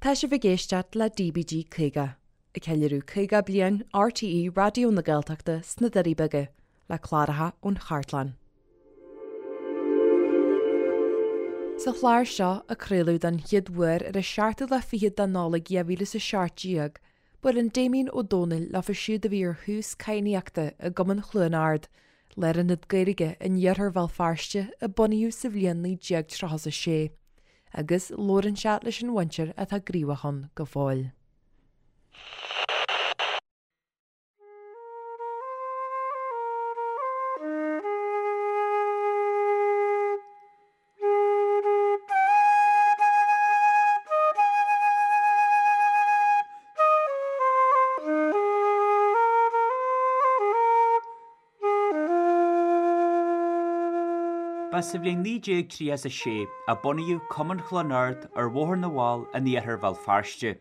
Tá sibh ag éisteacht le DBG 50, ag ceiliúradh 50 bliain RTÉ Raidió na Gaeltachta sna Doirí Beaga, le cláracha ón chartlann. Sa chlár seo, a craoladh don chéad uair ar an seachtú lá fichead de Nollaig 2017, buaileann Damien Ó Dónaill leofa siúd a bhí ar thús cadhnaíochta i gCumann Chluain Ard, lárionad Gaeilge in iarthar Bhéal Feirste a bunaíodh sa bhliain 1936. agus labhrann sé leis an mhuintir atá gníomhach ann go fóill. Ba sa bhliain 1936 a bunaíodh Cumann Chluain Ard ar Bhóthar na bhFál in iarthar Bhéal Feirste.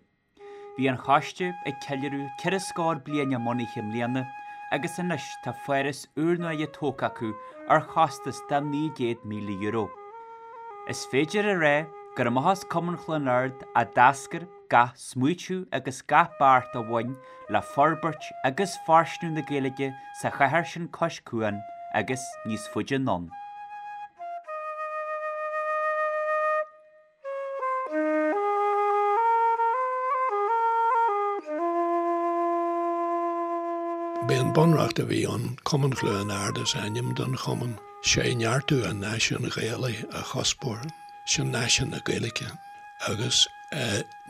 Bhí an choiste ag ceiliúradh ceithre scór bliain a mbunaithe i mbliana agus anois tá foras úrnua tógtha acu ar chostas de €900,000. Is féidir a rá gur amach as Cumann Chluain Ard a d'eascair gach smaoitiú agus gach beart a bhain le forbairt agus fóirsteanú na Gaeilge sa chathair sin cois cuain agus níos faide anonn. B'é an bunreacht a bhí ann, Cumann Chluain Ard is ainm don chumann, sé neartú an náisiúin Ghaelaigh a chuspóir, sin náisiún na Gaeilge, agus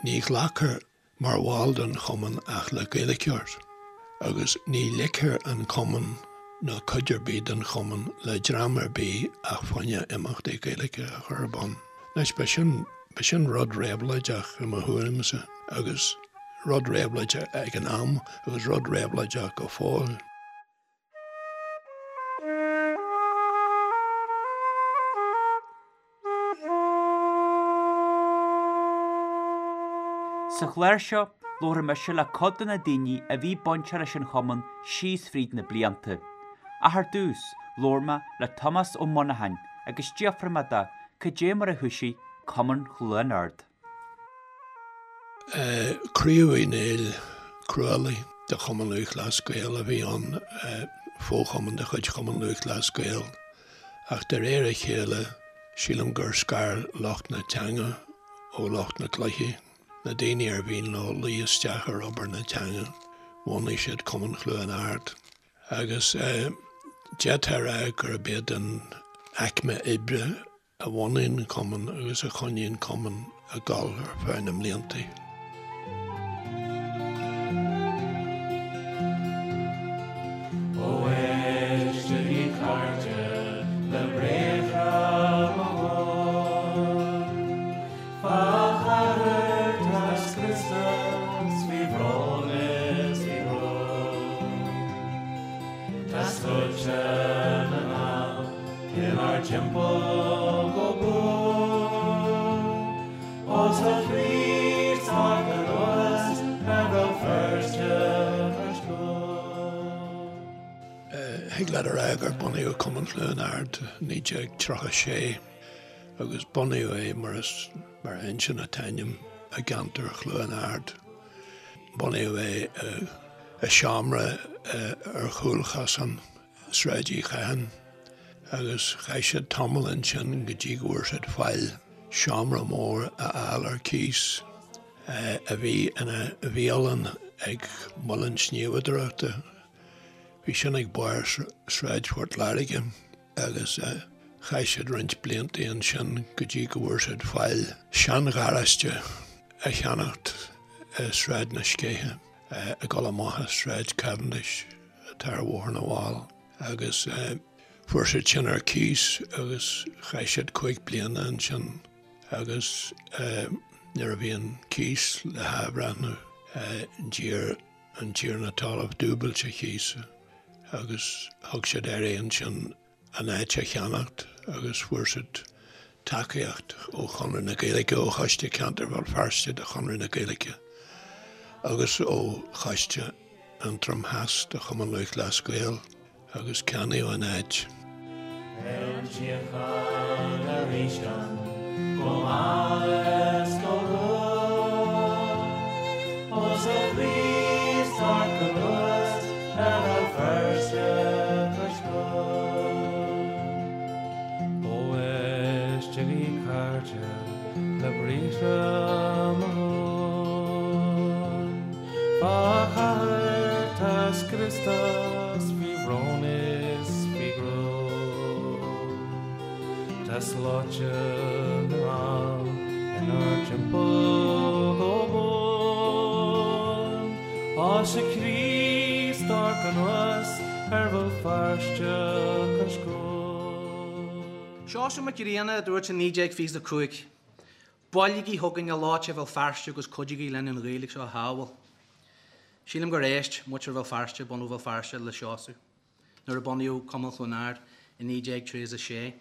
ní ghlacfar mar bhall den chumann ach le Gaeilgeoir, agus ní ligfear an cumann ná cuid ar bith den chumann le dream ar bith ach fá choinne imeachtaí Gaeilge a chur ar bun. Anois, ba sin, ba sin rud réabhlóideach i mo thuairimse, agus rud réabhlóideach ag an am agus rud réabhlóideach go fóill. Sa chlár seo, labharfaidh mise le cuid de na daoine a bhí bainteach leis an chumann síos fríd na blianta. Ach ar dtús, labhair mé le Tomás Ó Monacháin agus d'fhiafraigh mé de cad é mar a thoisigh Cumann Chluain Ard. Craobh Uí Néill Crualaigh de Chumann Lúthchleas Gael a bhí ann, fo-chumann de chuid Chumann Lúthchleas Gael, ach de réir a chéile sílim gur scar lucht na teanga ó lucht na cluichí, na daoine ar mhian leo luí isteach ar obair na teanga, bhunaigh siad Cumann Chluain Ard. Agus d'fhéadfá a rá gurb iad an aicme oibre a bhunaigh an cumann agus a choinnigh an cumann ag dul ar feadh na mblianta. Ó éistigí cairde le briathra mo ghlóir, Fá chathair tá scriosta 's faoi bhrón is faoi bhrón. Tá sluaite na nGall inár dtimpeall go buan. Ó tá Críost tagtha anuas ar Bhéal Feirste cois cuain. Thig leat a rá gur bunaíodh Cumann Chluain Ard i 1936 agus bunaíodh é mar is mar a inseann an t-ainm i gceantar Chluain Ard. Bunaíodh é i seomra ar chúlchosán Sráid Uí Chatháin agus chaith siad tamall ansin go dtí go bhfuair siad faill seomra mór a fháil ar cíos a bhí ina bhialann ag muileann sníomhadóireachta. Bhí sin ag barr Sráid Phort Láirge. agus chaith siad roinnt blianta ansin go dtí go bhfuair siad faill seangharáiste a cheannacht i Sráid na Scéithe, ag dul amach as Sráid Cavendish atá ar Bhóthar na bhFál, agus fuair siad sin ar cíos agus chaith siad 5 bliana ansin agus nuair a bhí an cíos le hathbhreithniú d'iarr an tiarna talaimh dúbailt an chíosa agus thug siad air ansin an áit a cheannacht agus fuair siad tacaíocht ó Chonradh na Gaeilge, ó Choiste Ceantair Bhéal Feirste de Chonradh na Gaeilge agus ó Choiste Aontroim Theas de Chumann Lúthchleas Gael. Agus ceannaíodh an áit. Beidh an tsíocháin arís ann go mall is go luath. Éistigí cairde le briathra mo thóin. Fá chathair tá scriosta 's faoi bhrón is faoi ghruaim. Tá slóite na nGall inár dtimpeall go buan. Á 'sé Críost amharc anuas ar Bhéal Feirste cois cuain. Seosamh Mac Grianna a dúirt i 1925, Buailigí chugainn a lucht Bhéal Feirste agus cuidígí linn an Ghaeilge seo a shábháil. Sílim gur éist muintir Bhéal Feirste, bunadh Bhéal Feirste, le Seosamh nuair a bunaíodh Cumann Chluain Ard i 1936.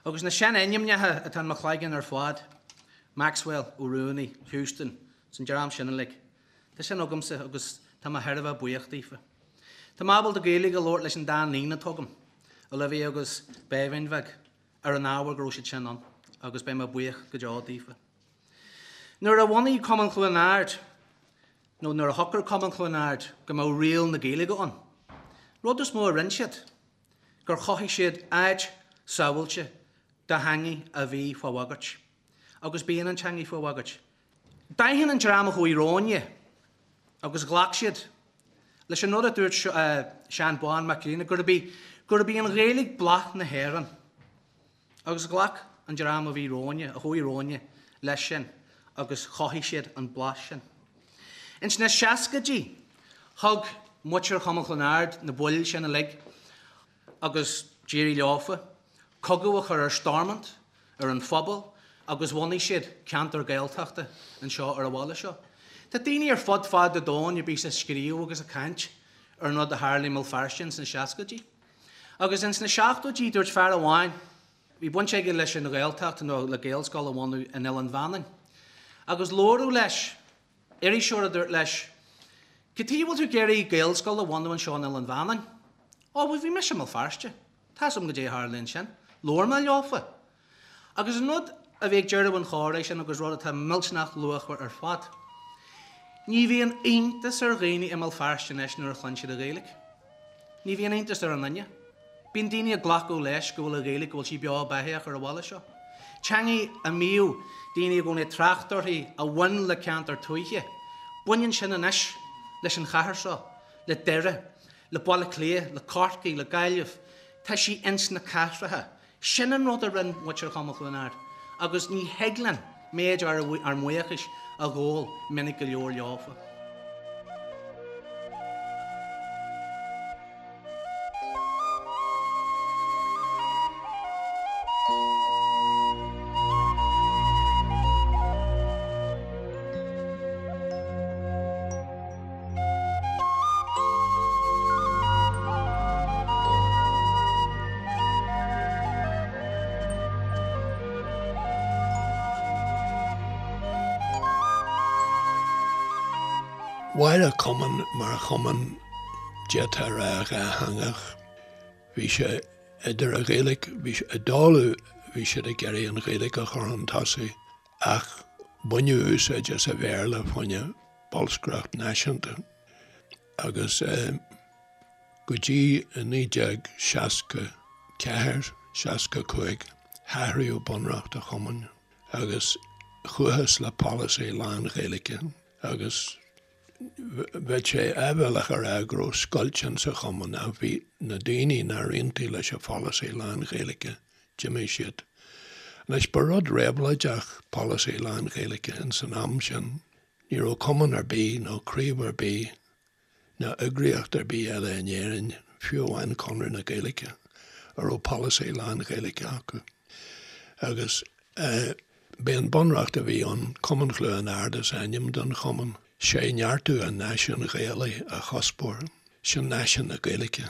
Agus na seanainmneacha atá in mo chloigeann ar fad, Maxwell, Ó Ruanaí, Houston, is an dream sin uilig. Tá sin agamsa agus tá mé thar a bheith buíoch daofa. Tá mé ábalta Gaeilge a labhairt leis an dá níon atá agam, Olivia agus Béibhinn bheag, ar an ábhar go raibh siad sin ann agus beidh mé buíoch go deo daofa. Nuair a bhunaigh Cumann Chluain Ard, nó nuair a shocraigh Cumann Chluain Ard go mbeadh riail na Gaeilge ann, rud is mó a rinne siad, gur chothaigh siad áit sábháilte do theangaidh a bhí fá bhagairt. Agus bíonn an teangaidh fá bhagairt. D'aithin an dream a chuaigh romhainne agus ghlac siad leis an rud a dúirt Seán Bán Mac Grianna, gurb í, gurb í an Ghaeilge bláth na hÉireann. Agus ghlac an dream a bhí romhainne, a chuaigh romhainne, leis sin agus chothaigh siad an bláth sin. Ins na seascaidí, thug muintir Chumann Chluain Ard, na baill sin uilig, agus d'éirigh leofa, cogadh a chur ar Stormont, ar an phobal agus bhunaigh siad ceantar Gaeltachta anseo ar an bhaile seo. Tá daoine ar fud fad an domhain a bíos ag scríobh agus ag caint ar an rud a tharla i mBéal Feirste ins na seascaidí. Agus ins na seachtóidí dúirt fear amháin, bhí baint aige leis an Ghaeltacht nó le Gaelscoil a bhunú in Oileán Mhanainn, agus labhradh leis, iriseoir a dúirt leis, Cad chuige a bhfuil tú ag iarraidh Gaelscoil a bhunú anseo in Oileán Mhanainn? Ó, bhuel bhí mise i mBéal Feirste. Tá's agam goidé a tharla ansin. Labhair mé leofa. Agus an rud a bhí ag deireadh an chomhrá sin agus rud atá millteanach luachmhar ar fad, ní bhíonn iontas ar dhaoine i mBéal Feirste anois nuair a chluin siad an Ghaeilge. Ní bhíonn iontas ar aon duine. Bíonn daoine ag glacadh leis go bhfuil an Ghaeilge, go bhfuil sí beo beathaíoch ar an bhaile seo. Teangaidh a mbíodh daoine i gcónaí ag trácht uirthi a bhain le ceantar tuaithe, baineann sin anois leis an chathair seo, le Doire, le Baile Átha Cliath, le Corcaigh, le Gaillimh, tá sí ins na cathracha. Sin an rud a rinn muintir Chumann Chluain Ard agus ní thig linn méid ár mbuíochais a ghabháil minic go leor leofa. Mhair an cumann mar chumann d'fhéadfá a rá dhátheangach. Bhí sé idir an Ghaeilge, bhí sé i dtólamh, bhí siad ag iarraidh an Ghaeilge a chur chun tosaigh ach baineadh úsáid as an Bhéarla fá choinne bolscaireacht náisiúnta agus go dtí 1964, 65 hathraíodh bunreacht an chumainn agus chuathas le polasaí lán-Ghaeilge agus bheadh sé áibhéalach a rá go raibh scoilt insa chumann ach bhí na daoine nár aontaigh leis an pholasaí lán-Ghaeilge, d'imigh siad. Anois ba rud réabhlóideach polasaí lán-Ghaeilge ins an am sin. Ní raibh cumann ar bith nó craobh ar bith ná eagraíocht ar bith eile in Éirinn, fiú amháin Conradh na Gaeilge, a raibh polasaí lán-Ghaeilge acu. Agus b'é an bunreacht a bhí ann, Cumann Chluain Ard is ainm don chumann, sé neartú an náisiúin Ghaelaigh a chuspóir, sin náisiún na Gaeilge,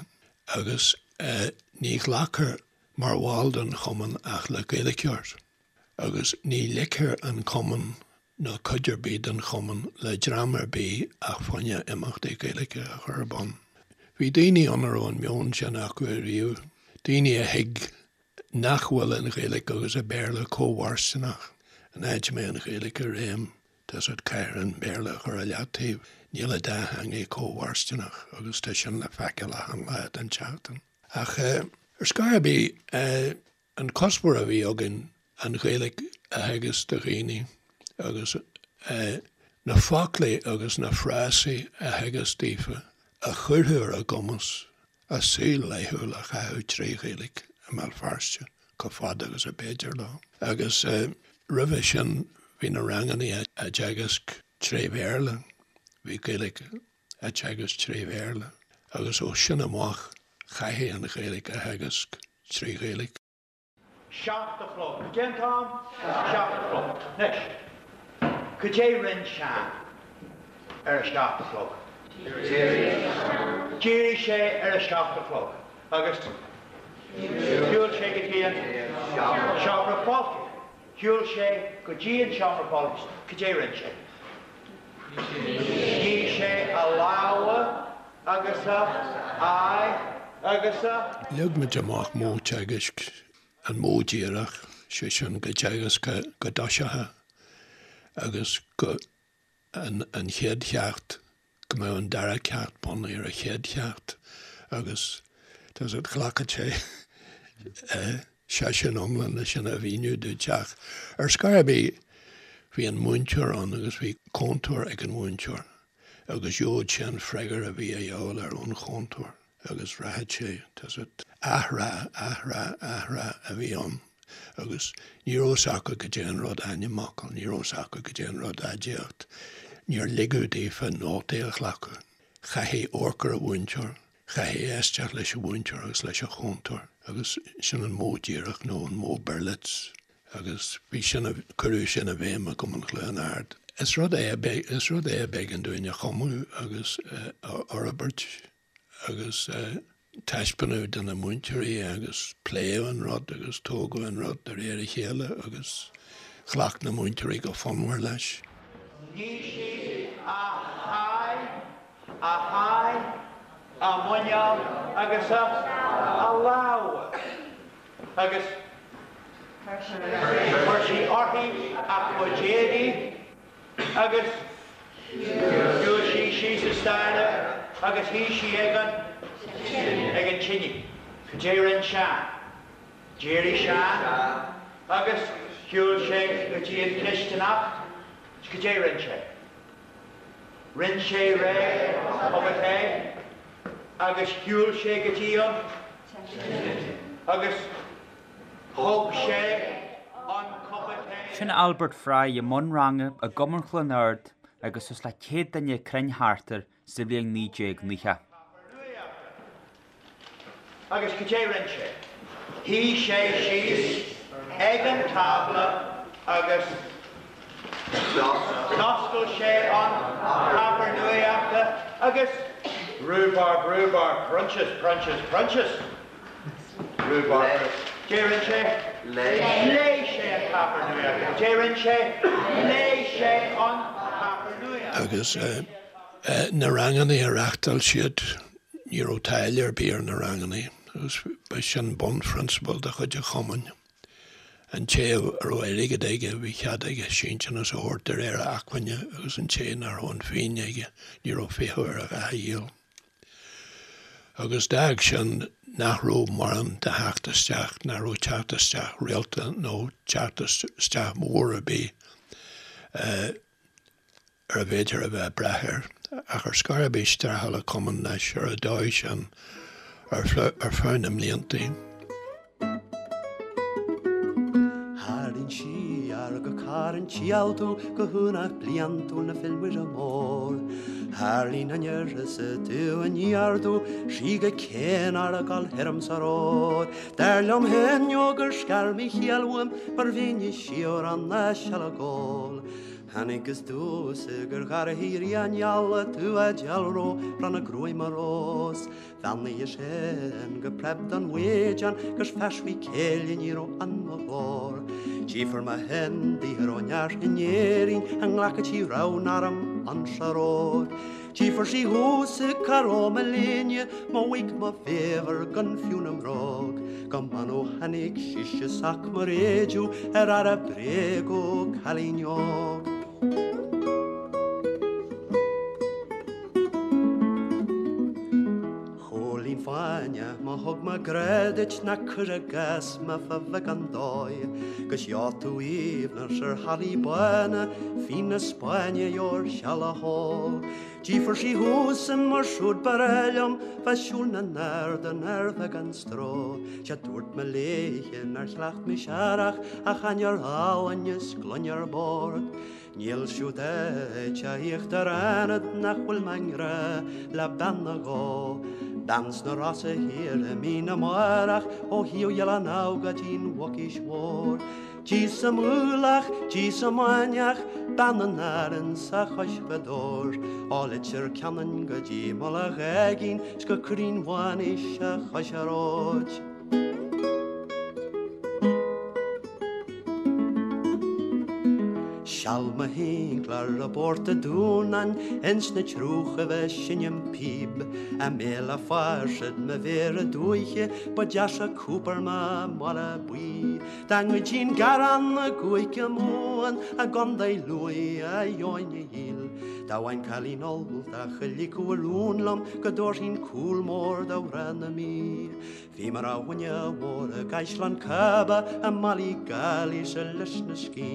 agus ní ghlacfar mar bhall den chumann ach le Gaeilgeoir, agus ní ligfear an cumann ná cuid ar bith den chumann le dream ar bith ach fá choinne imeachtaí Gaeilge a chur ar bun. Bhí daoine ann a raibh an meon sin acu ariamh, daoine a thuig nach bhfuil an Ghaeilge agus an Béarla cómhairsteanach. An áit a mbeidh an Ghaeilge i réim, tá's agat, caithfear an Béarla a chur i leataobh. Níl an dá theangaidh cómhairsteanach agus tá sin le feiceáil achan lá den tseachtain. Ach ar scor ar bith, an cuspóir a bhí againn. an Ghaeilge a theagasc do dhaoine agus na foclaí agus na frásaí a theagasc daofa a chuirfeadh ar a gcumas a saol laethúil a chaitheamh tré Ghaeilge i mBéal Feirste chomh fada agus a b'fhéidir leo. Agus roimhe sin bhí na rangannaí á dteagasc tré Bhéarla, bhí Gaeilge á teagasc tré Bhéarla agus ó sin amach chaithfí an Ghaeilge a theagasc tré Ghaeilge. 7 a chlog. Cad é an t-am? 7 a chlog. Anois, cad é rinn Seán ar a 7 a chlog? D'éirigh sé ar a 7 a chlog agus shiúil sé go dtí an seomra fáiltithe. Shiúil sé go dtí an seomra fáiltithe. Cad é rinn sé? Nigh sé a lámha agus a aghaidh agus a. Leag muid amach modh teagaisc, an modh díreach, sé sin go dteagascfá go dtoiseochthá agus go an chéad cheacht, go mbeadh an dara ceacht bunaithe ar an chéad cheacht agus tá 's agat ghlacfadh sé seisiún iomlán le sin a mhíniú duit ach ar scor ar bith bhí an múinteoir ann agus bhí cúntóir ag an mhúinteoir agus gheobhadh sé an freagra a bhí a dhíobháil ar ón chúntóir. agus rachadh sé, tá 's agat, athrá, athrá, athrá a bhí ann agus ní raibh 's acu goidé an rud ainmfhocal, ní raibh 's acu goidé an rud aidiacht, níor ligeadh daofa nótaí a ghlacadh. Chaithfí amharc ar an mhúinteoir, chaithfí éisteacht leis an mhúinteoir agus leis an chúntóir agus sin an modh díreach nó an modh Berlitz agus bhí sin, cuireadh sin i bhfeidhm i gCumann Chluain Ard. Is rud é a, is rud é a b'éigean dúinn a chumadh agus a fhorbairt. agus taispeánadh do na múinteoirí agus pléadh an rud agus tógadh an rud de réir a chéile agus ghlac na múinteoirí go fonnmhar leis. Nigh sí a haghaidh, a haghaidh, a muineál agus a lámha agus chuir sí uirthi a cuid éadaí. Agus shiúil sí síos an staighre agus shuigh sí ag an, ag an tine. Cad é rinn Seán? D'éirigh Seán agus shiúil sé go dtí an chisteanach. Cad é rinn sé? Rinn sé réidh a chupa tae agus shiúil sé go dtí an tine agus. Thug sé an cupa tae. Sin Albert Fry i mbun ranga i gCumann Chluain Ard agus suas le 100 duine cruinn thart air sa bhliain 1990. Agus cad é rinn sé? Shuigh sé síos ag an tábla agus d'oscail sé an páipéar nuachta agus rhubarb, rhubarb, prunches, prunches, prunches. Rhubarb. Cad é rinn sé? Léigh sé an páipéar nuachta. Cad é rinn sé? Léigh sé an páipéar nuachta. Agus na rangannaí a reáchtáil siad, ní raibh táille ar bith ar na rangannaí agus ba sin bunphrionsabal de chuid an chumainn. An té a raibh airgead aige, bhí cead aige síntiús a thabhairt de réir a acmhainne agus an té nach raibh an phingin aige, ní raibh fiacha air a dhath a dhíol. Agus d'fhág sin nach raibh mórán de theacht isteach, nach raibh teacht isteach rialta nó teacht isteach mór ar bith ar a bhféidir a bheith ag brath air. Ach ar scor ar bith streachail an cumann leis ar an dóigh sin ar feadh na mblianta. Tharraing siar go Carn Tíaltú go haonach bliantúil na Féile Muire Mór. Tharlaíonn an uireasa tú in ardú sí go céin ar a gol thirim sa ród. Dar liom féin ó gur scar mí chiall uaim mar bhínn i sior an na sealagól. Tháinig is dúsa gur gharraí rí an eala tú a dealró bran a gruaim a rós. Bheannaigh sin go preab don mhaidin gus feismí céille ní raibh an mo ghlór. Tchífir mo shin d'ithir ó neart in Éirinn a nglacadh tí raibh arm an searóir. Tchífir sí thuas i caró mo léine mo mhaidhc mo bhéabhar gan fiú na mbróg. Go mban ó tháinig sise sac mo réidiú ar aire bréag ó cailín óg. Chóilín fáinne mo. Má thug mé grá duit ná cuir i gcás mé fá bheagán dóigh, 'Gus gheobhaidh tú aoibhneas ar hallaí bána, fíon na Spáinne gheobhair seal a hól. Tchífir sí thusa mar siúd ba ghnách liom bheith siúl na n-ard ar bheagán stró. Sea dúirt mé léithe nár chleacht mise aerach ach ainnir álainn is gloine ar bord. Níl siúd áit a íochtar ionad nach bhfuil mé i ngrá le bean nó dhó. Bean sna Rosa thiar i mí na mBárach ó thaobh Oileán Abha go dtí'n Mhucais Mhór. Dí sa Mhullach, dí sa Mainiach, bean in Árainn 's a chois Ghaoth Dobhair. Ó Leitir Ceanainn go dtí Mullach Aigín 's go Cruinn Mhaonaís a chois an róid. Seal mo shinclear i bPort a' Dúnáin ins na triúchaibh ag seinm píb, I mbéal a' Pháirsead mo mhéara dúiche ba deasa cúpar mo mhála buí. Dá ngoidfinn garrán i gCúige Mumhan i gContae Lú a gheobhainn a dhíol. Dá bhfaighinn cailín Ultach a ligfeadh a rún liom go dtabharfainn cúl mór do mhná na Mí. Bhí mé ar dhuine mhór i gCaisleán Cába i mBallygally 's i Lios na Scí.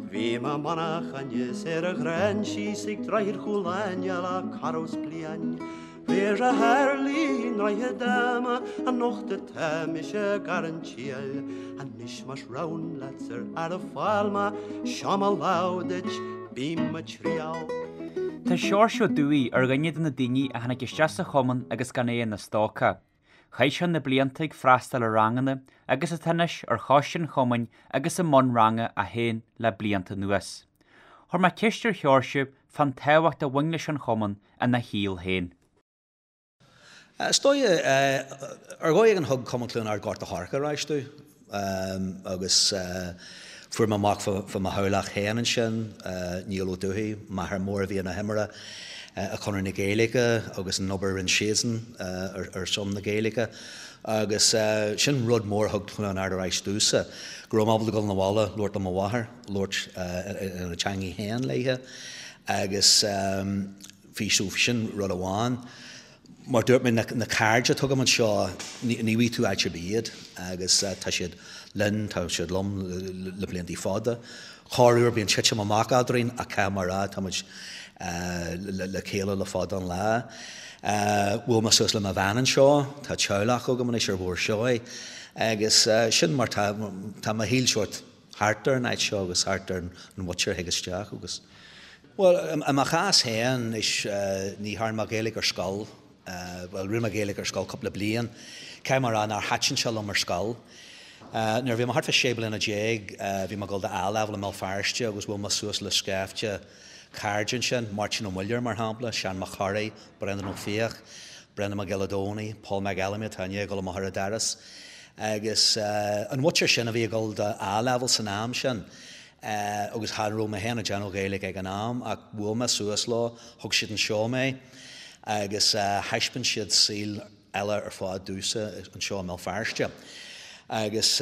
Bhí mé i manchain is ar an Ghráinsí 's ag Droichead Chúil Aine le corradh 's bliain. Riar a tharlaigh i nDroichead Ama anocht atá mise ag an triail. Anois más rogha leat ar fhear fáil mé, seo mo lámh duit, bím ag triall. Tá Seoirse Ó Dubhthaigh ar dhuine de na daoine a tháinig isteach sa chumann agus gan é ina stócach. Chaith sé na blianta ag freastal ar ranganna agus atá anois ar choiste an chumainn agus i mbun ranga é féin le blianta anuas. Chuir mé ceist ar Sheoirse fán tábhacht a bhain leis an chumann ina shaol féin. Is dóigh, ar dhóigh éigin thug Cumann Chluain Ard Gort a' Choirce ar ais domh agus fuair mé amach fá mo theaghlach féin ansin, Niall Ó Dubhthaigh, m'athair mór a bhí ina thimire i Conradh na Gaeilge agus an obair a rinne siadsan ar son na Gaeilge agus sin rud mór a thug Cluain Ard ar ais domhsa, go raibh mé ábalta dul 'na bhaile, labhairt le mo mháthair, labhairt ina teangaidh féin léithe agus bhí so sin rud amháin. Mar dúirt mé, na cairde atá agam anseo, ní bhfaighidh tú áit ar bith iad agus tá siad linn, tá siad liom le blianta fada. Corruair bíonn titim amach eadrainn ach caithfidh mé a rá, tá muid le chéile le fada an lá. Bhuail mé suas le mo bhean anseo, tá teaghlach agam anois ar Bhóthar Seoighe agus sin mar tá, tá mo shaol sórt thart ar an áit seo agus thart ar an mhuintir a thig isteach agus. Bhuel, i mo chás féin, is ní thearn mé Gaeilge ar scoil, bhuel, rinne mé Gaeilge ar scoil cúpla bliain. Caithfidh mé a rá nár thaitin sé liom ar scoil. Nuair a bhí mé thart fá 16 bliana, bhí mé ag dul do A-Level i mBéal Feirste agus bhuail mé suas le scaifte cairde ansin, Máirtín Ó Muilleoir mar shampla, Seán Mac Corraidh, Breandán Ó Fiaich, Breandán Mac Giolla Domhnaill, Paul McElamy atá i ndiaidh dul amach ar an doras. Agus an mhuintir sin a bhí ag dul do A-Level san am sin, agus chan raibh mé féin ag déanamh Gaeilge ag an am ach bhuail mé suas leo, thug siad anseo mé agus thaispeáin siad saol eile ar fad domhsa anseo i mBéal Feirste. Agus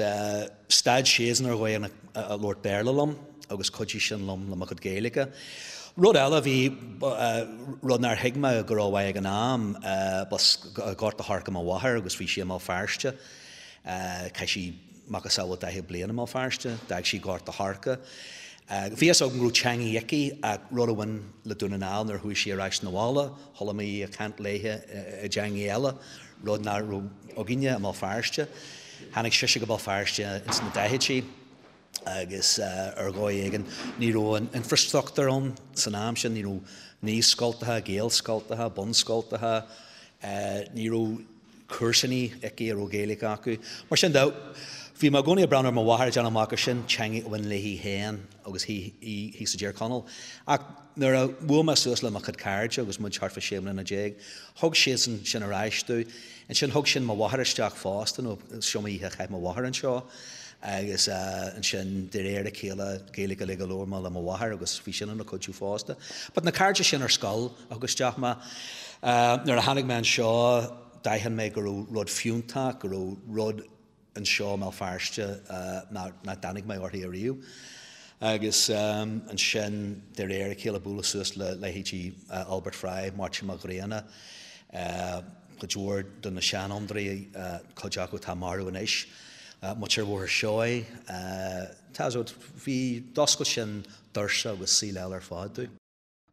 stad siadsan ar dhóigh ag labhairt Béarla liom agus chuidigh sin liom le mo chuid Gaeilge. Rud eile a bhí, rud nár thuig mé go rómhaith ag an am, b'as Gort a' Choirce mo mháthair agus bhí sí i mBéal Feirste. Chaith sí macasamhail 40 bliain i mBéal Feirste. D'fhág sí Gort a' Choirce. Bhí fhios agam go raibh teangaidh aici ach rud a bhain le Dún na nGall nuair a chuaigh sí ar ais 'na bhaile, chuala mé í ag caint léithe i dteangaidh eile, rud nach raibh againne i mBéal Feirste. Tháinig sise go Béal Feirste ins na daichidí agus ar dhóigh éigin ní raibh an infrastruchtúr ann san am sin, ní raibh naíscoltacha, gaelscoltacha, bunscoltacha, ní raibh comharsanaí aici a raibh Gaeilge acu. Mar sin de, bhí mé i gcónaí ag breathnú ar mo mháthair ag déanamh amach gur sin teangaidh a bhain léi féin agus í thíos i dTír Chonaill. Ach nuair a bhuail mé suas le mo chuid cairde agus muid thart fá 16 mbliana, thug siadsan sin ar ais domh. Ansin thug sin mo mháthair isteach fosta nó is iomaí oíche a chaith mo mháthair anseo agus ansin de réir a chéile Gaeilge uilig a labhair mé le mo mháthair agus bhí sin ina cuidiú fosta. But na cairde sin ar scoil, a thug isteach mé. Nuair a tháinig mé anseo, d'aithin mé go raibh rud fiúntach, go raibh rud anseo i mBéal Feirste nach dtáinig mé uirthi ariamh. Agus ansin, de réir a chéile, bualadh suas le leithéidí Albert Fry, Máirtín Mac Grianna. cuid mhór de na seanfhondúirí, cuid acu atá marbh anois, muintir Bhóthar Seoighe, tá a fhios agat, bhí, d'oscail sin doirse agus saol eile ar fad domh.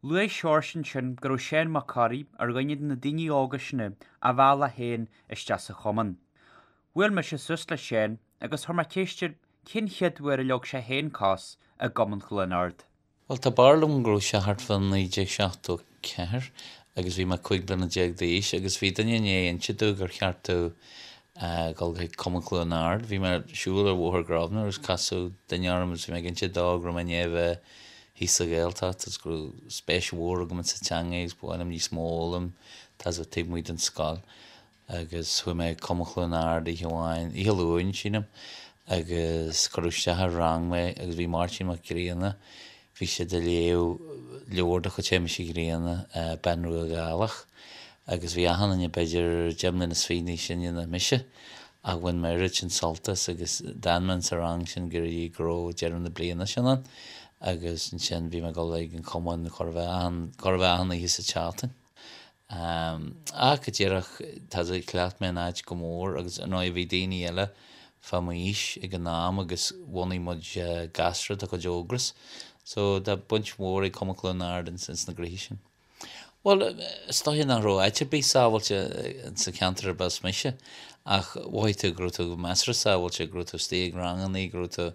Luaigh Seoirse ansin go raibh Seán Mac Corraidh ar dhuine de na daoine óga sin a mheall é féin isteach sa chumann. Bhuail mise suas le Seán agus chuir mé ceist air cén chéad uair a leag sé féin cos i gCumann Chluain Ard. Bhuel, tá barúil agam go raibh sé thart fá 1974 agus bhí mé 15 bliana d'aois agus bhí duine i ndiaidh inse domh gur cheart domh dul chuig Cumann Chluain Ard. Bhí mé ag siúl ar Bhóthar Grosvenor agus casadh duine orm agus bhí mé ag inse dó go raibh mé i ndiaidh a bheith thíos sa Ghaeltacht agus go raibh spéis mhór agam insa teanga agus ba mhaith liom níos mó a fhoghlaim, tá a fhios agat, taobh amuigh den scoil. Agus chuaigh mé chuig Cumann Chluain Ard oíche amháin, oíche Luain, sílim, agus cuireadh isteach i rang mé agus bhí Máirtín Mac Grianna, bhí siad ag léamh leabhar de chuid Shéamais Uí Ghrianna, Bean Rua Ghaelach, agus bhí achan duine b'fhéidir deich mbliana is fiche níos sine ná mise, ach bhain mé oiread sin sult as agus d'fhan mé insa rang sin go dtí go raibh deireadh na bliana sin ann agus ansin bhí mé ag dul ag an chumann chóir a bheith achan, chóir a bheith achan oíche sa tseachtain. Ach go díreach, tá a fhios agat, chleacht mé an áit go mór agus ar ndóigh bhí daoine eile fá m'aois ag an am agus bhunaigh muid gasra de chuid Ógras. So tá baint mhór ag Cumann Chluain Ard ins na gnoithí sin. Bhuel, is dóiche nach raibh áit ar bith sábháilte sa cheantar arb as mise ach mhothaigh tú go raibh tú measartha sábháilte, go raibh tú istigh ag rangannaí, go raibh tú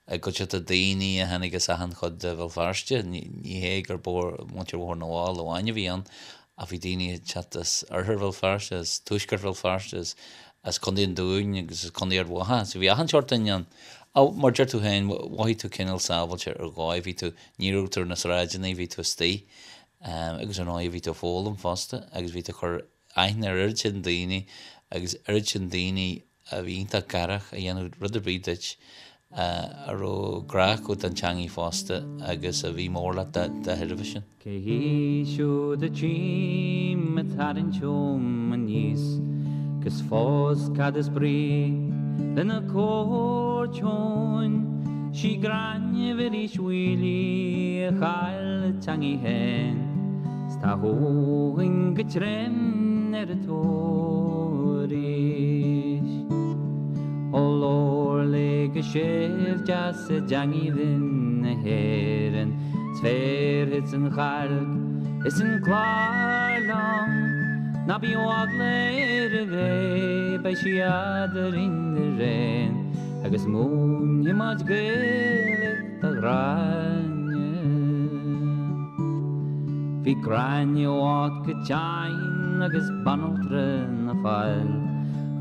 i gcuideachta daoine a tháinig as achan chuid de Bhéal Feirste. Ní hé gur muintir Bhóthar na bhFál amháin a bhí ann ach bhí daoine ag teacht as oirthear Bhéal Feirste, as tuaisceart Bhéal Feirste, as as Contae an Dúin agus as Contae Ard Mhacha. So bhí achan seort duine ann. Ach mar deir tú féin, mhothaigh tú cineál sábháilte ar dhóigh, bhí tú, ní raibh tú ar na sráideanna, bhí tú istigh. Agus ar ndóigh bhí tú ag foghlaim fosta agus bhí tú ag cur aithne ar oiread sin daoine agus oiread sin daoine a bhí iontach garach a dhéanfadh rud ar bith duit, a raibh grá acu don teangaidh fosta agus a bhí mór leat dá thairbhe sin. Cé hí siúd a tchím ag tarraingt chugam aníos 'gus fós cad is brí lena cuairt chugainn? 'Sí Gráinne Mhuiris Mhaoilí a chaill a teangaidh féin 's tá chugainn go trim ar a tóir arís. Ó labhair léi go séimh deas i dteangaidh bhinn na hÉireann 's bhéarfadsa an chailc is an clár liom. Ná bíodh eagla uirthi, beidh sí eadarainn araon agus múinfidh muid Gaeilge do Ghráinne. Bhí Gráinne bocht go tinn agus banaltra ina fáil.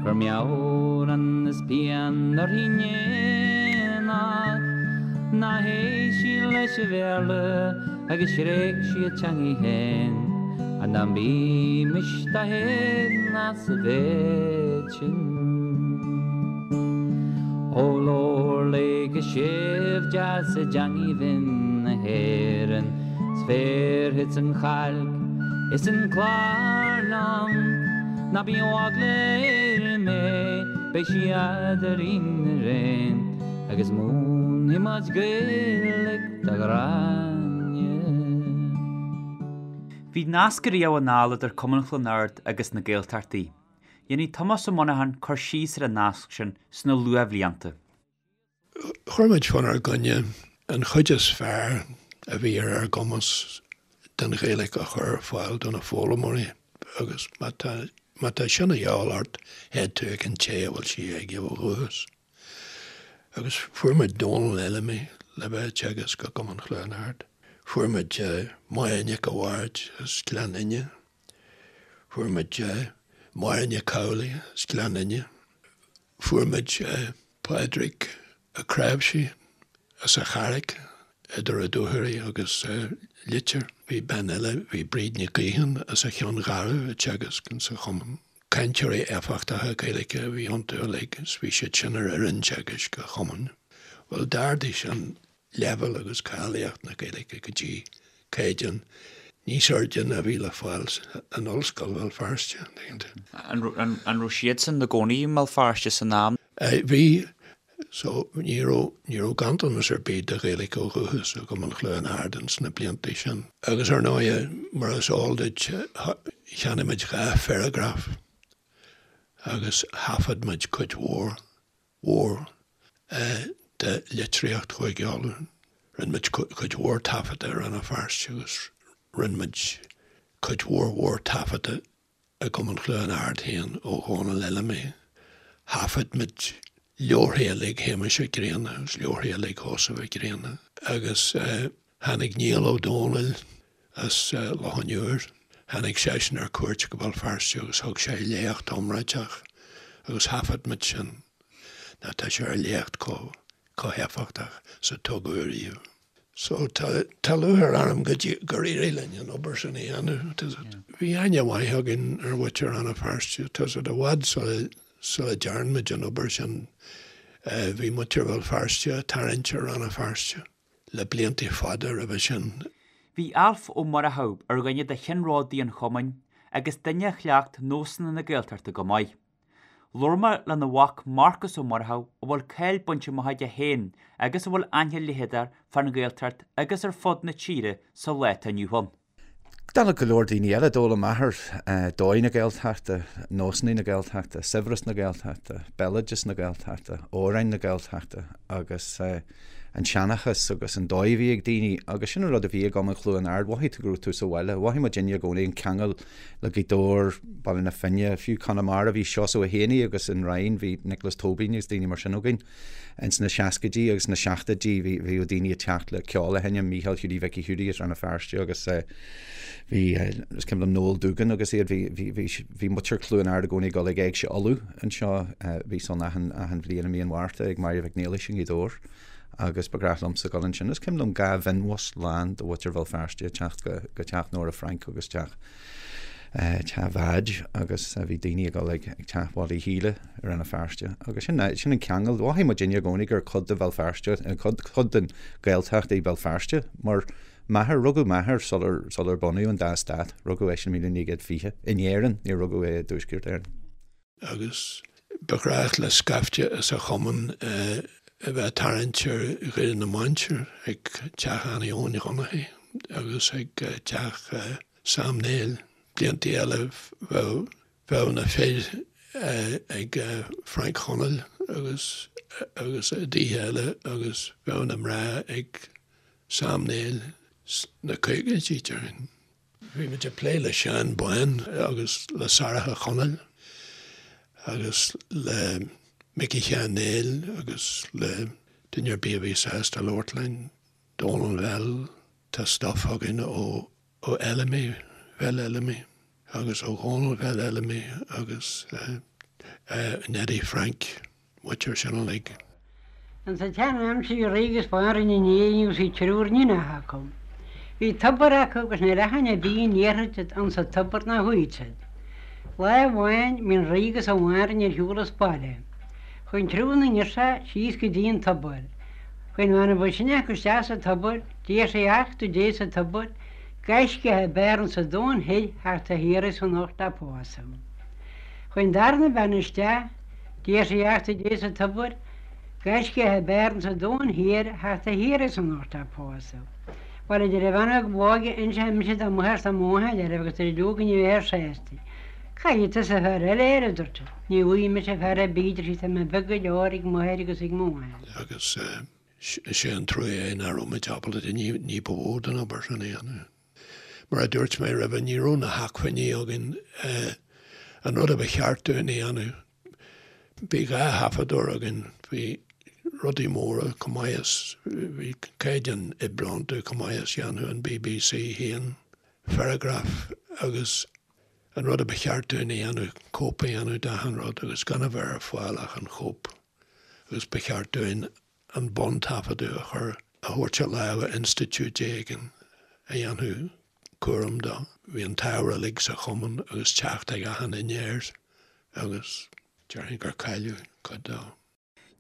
Chuir meabhrán is pian uirthi in éineacht. Nár théigh sí leis an Bhéarla agus thréig sí a teangaidh féin. Ach ná bímis dá héagnas sa mhéid sin. Ó labhair léi go séimh deas i dteangaidh bhinn na hÉireann 's bhéarfadsa an chailc is an clár liom. Ná bíodh eagla uirthi mé, beidh sí eadarainn araon agus múinfidh muid Gaeilge do Ghráinne. Bhí nasc ariamh anall idir Cumann Chluain Ard agus na Gaeltachtaí. Dhéanfaidh Tomás Ó Monacháin cur síos ar an nasc sin sna luathbhlianta. Chuir muid faoinár gcoinne an chuid is fearr a bhí ar ár gcumas den Ghaeilge a chur ar fáil do na foghlaimeoirí agus má tá má tá sin a dhíobháil ort, théid tú ag an té a bhfuil sí aige ó dhúchas. Agus fuair muid Dónal Fheilimí le bheith ag teagasc i gCumann Chluain Ard. Fuair muid Máire Nic a' Bhaird as Gleann Fhinne. Fuair muid Máire Nic Amhlaigh as Gleann Fhinne. Fuair muid Pádraig Ó Cnáimhsí as an Charraic idir Ó Dúchoraidh agus Leitir. Bhí bean eile, bhí Bríd Nic Gaoithín as an Cheann Gharbh ag teagasc insa chumann. Cainteoirí éifeachtacha Gaeilge a bhí iontu uilig is bhí siad sin ar fhoireann teagaisc an chumainn. Bhuel, d'ardaigh sin leibhéal agus cáilíocht na Gaeilge go dtí caighdeán níos airde ná a bhí le fáil in Ollscoil Bhéal Feirste. An raibh siadsan ina gcónaí i mBéal Feirste san am? Bhí. So, ní raibh, ní raibh ganntanas ar bith de Ghaeilge ó dhúchas i gCumann Chluain Ard ins na blianta sin. Agus ar ndóighe, mar is eol duit, cheannaigh muid 2 pharagraf. Agus thaifead muid cuid mhór mhór de litríocht Chúige Uladh. Rinne muid cuid mhór taifeadta i Rann na Feirste agus rinne muid cuid mhór mhór taifeadta i gCumann Chluain Ard féin ó Dhónal Fheilimí. Thaifead muid leabharthaí uilig Shéamuis Mhic Grianna agus leabharthaí uilig Sheosaimh Mhic Grianna agus tháinig Niall Ó Dónaill as Loch an Iúir. Tháinig seisean ar cuairt go Béal Feirste agus thug sé léacht iomráiteach agus thaifead muid sin. Nó tá sé ar léacht chomh héifeachtach is a tugadh ariamh. So tá tá lúcháir orm go gur éirigh linn an obair sin a dhéanamh. Bhí aithne mhaith againn ar mhuintir Rann na Feirste. Tá siad i bhfad sula sula dtearn muid an obair sin bhí muintir Bhéal Feirste ag tarraingt ar Rann na Feirste le blianta fada roimhe sin. Bhí Alf Ó Murchú ar dhuine de cheannródaí an chumainn agus duine a chleacht nósanna na Gaeltachta go maith. Labhair mé lena mhac Marcas Ó Murchú a bhfuil cáil bainte amach aige féin agus a bhfuil aithne leitheadach fán Ghaeltacht agus ar fud na tíre sa lá atá inniu ann. Dála go leor daoine eile, d'fhoghlaim m'athair dóigh na Gaeltachta, nósanna na Gaeltachta, saibhreas na Gaeltachta, béaloideas na Gaeltachta, amhráin na Gaeltachta agus an seanchas agus an dóigh a bhí ag daoine agus sin an rud a bhí i gCumann Chluain Ard, mhothaigh tú go raibh tú sa bhaile, mhothaigh muidinne i gcónaí an ceangal le Gaoth Dobhair, Baile na Finne, fiú Conamara, bhí Seosamh Ó hÉanaí agus an Rinn, bhí Nioclás Tóibín agus daoine mar sin againn ins na seascaidí agus na seachtóidí, bhí, bhíodh daoine ag teacht le ceol a sheinm, Mícheál Hiúdaí Mhicí Hiúdaí as Rann na Feirste agus bhí, is cuimhin liom Noel Doogan agus iad, bhí, bhí, bhí, bhí muintir Chluain Ard i gcónaí ag dul ag Éigse Uladh anseo, bhí san achan, achan bhliain i mí an Mhárta ag Máire Mhic Niallais i nGaoth Dobhair agus ba ghnách liomsa dul ansin. Is cuimhin liom 2 mhionbhus lán de mhuintir Bhéal Feirste ag teacht go, go teach Nóra Frainc agus teach, teach Mheaid agus bhí daoine ag dul ag, ag teach Mholly Shíle i Rann na Feirste agus sin, sin an ceangal. Mhothaigh muidinne i gcónaí gur cuid de Bhéal Feirste, cuid, cuid den Ghaeltacht í Béal Feirste mar M'athair, rugadh m'athair sular, sular bunaíodh an dá stát, rugadh eisean i 1920, in Éirinn, níor rugadh é i dTuaisceart Éireann. Agus ba ghnách le scaifte as an chumann a bheith ag tarraingt ar Dhoire na Mainsear ag teach Annie Eoin Dhonnachaidh agus ag teach Sam Néill. Blianta eile bheadh, bheadh na fir ag Frank Chonaill agus, agus i dtithe eile agus bheadh na mná ag Sam Néill sna caogaidí, déarfainn. Bhí muid ag plé le Seán Bán agus le Sarah Chonaill agus le Micí Sheáin Néill agus le duine ar bith a bhí sásta labhairt linn, Dónal Bhell, tá stuif againn ó ó Fheilimí, Bheil Fheilimí agus ó Dhónal Bheil Fheilimí agus Neidí Frainc. muintir sin uilig. Ins an tsean-aimsir bhí rí agus banríon in Éirinn agus bhí triúr níonacha acu. Bhí tobar acu agus níl aithne ar bith an iarrfaid ins an tobar ná chuaidh siad. Lá amháin bhí an rí agus an bhanríon ar shiúl as baile. Chuaidh an triúr na ngirseach síos go dtí an tobar. Chuaidh an bhean a ba shine acu isteach sa tobar, d'iarr sí achtú Dé sa tobar, gaiscíoch ab fhearr ins an domhan thoir theacht á hiarraidh anocht á pósadh. Chuaidh an darna bean isteach, D'iarr sí achtú Dé sa tobar, gaiscíoch ab fhearr ins an domhan thiar theacht á hiarraidh anocht á pósadh. Bhuel, a deir an bhean óg b'óige, inseoidh mise do mháthair 's do mháthair oraibh agus tar éis go ní bheifear sásta. Caithfidh tusa fear eile air, a dúirt sí. Ní bhfaighidh mise fear ar bith, a deir sí, tá mé beag go leor ag máthair agus ag mo mháthair. Agus is é an trua é nach raibh muid ábalta ní ba mhó den obair sin a dhéanamh. Mar a dúirt mé roimhe, ní raibh na hacmhainní againn an rud a ba cheart dúinn a dhéanamh. Bhí 2 thaifeadóir againn, bhí rudaí móra chomh maith is, bhí caighdeán oibre iontu chomh maith is dhéanfadh an BBC féin Ferrograph agus an rud a ba cheart dúinn a dhéanamh, cóip a dhéanamh d'achan rud agus gan a bheith ar fáil ach an chóip agus ba cheart dúinn an buntaifeadadh a chur, a thabhairt i lámha institiúid éigin a dhéanfadh cúram dó. Bhí an t-ábhar uilig sa chumann agus teacht ag achan duine air agus déarfainn gur cailleadh cuid dó.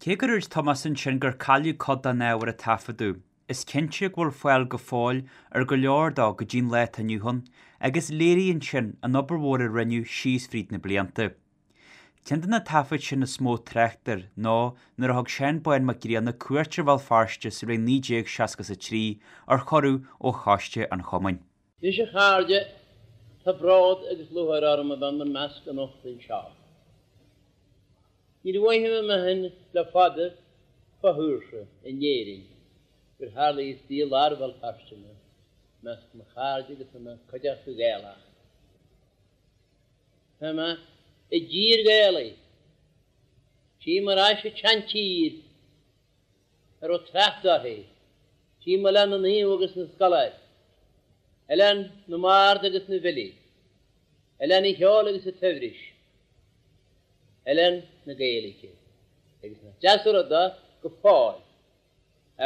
Cé gur dhúirt Tomás ansin gur cailleadh cuid den ábhar a taifeadadh, is cinnte go bhfuil fáil go fóill ar go leor dó go dtí'n lá atá inniu ann agus léiríonn sin an obair mhór a rinneadh síos fríd na blianta. Ceann de na taifid sin is mó trácht air ná nuair a thug Seán Bán Mac Grianna cuairt ar Bhéal Feirste sa bhliain 1963 ar chuireadh ó choiste an chumainn. Anois a chairde, tá bród agus lúcháir orm a bheith in bhur measc anocht anseo. Níor mhothaigh mé féin le fada fo-shaoirse in Éirinn gur tharla istigh i lár Bhéal Feirste mé, i measc mo chairde agus i mo cuideachta Ghaelach. Tá mé i dtír Ghaelaigh. Tchím ar ais an tseantír a raibh trácht uirthi. Tchím Oileán na Naomh agus na Scoláirí, Oileán na mBard agus na bhFilí, Oileán an Cheoil agus an tSaibhris. Oileán na Gaeilge agus nach deas an rud é go fóill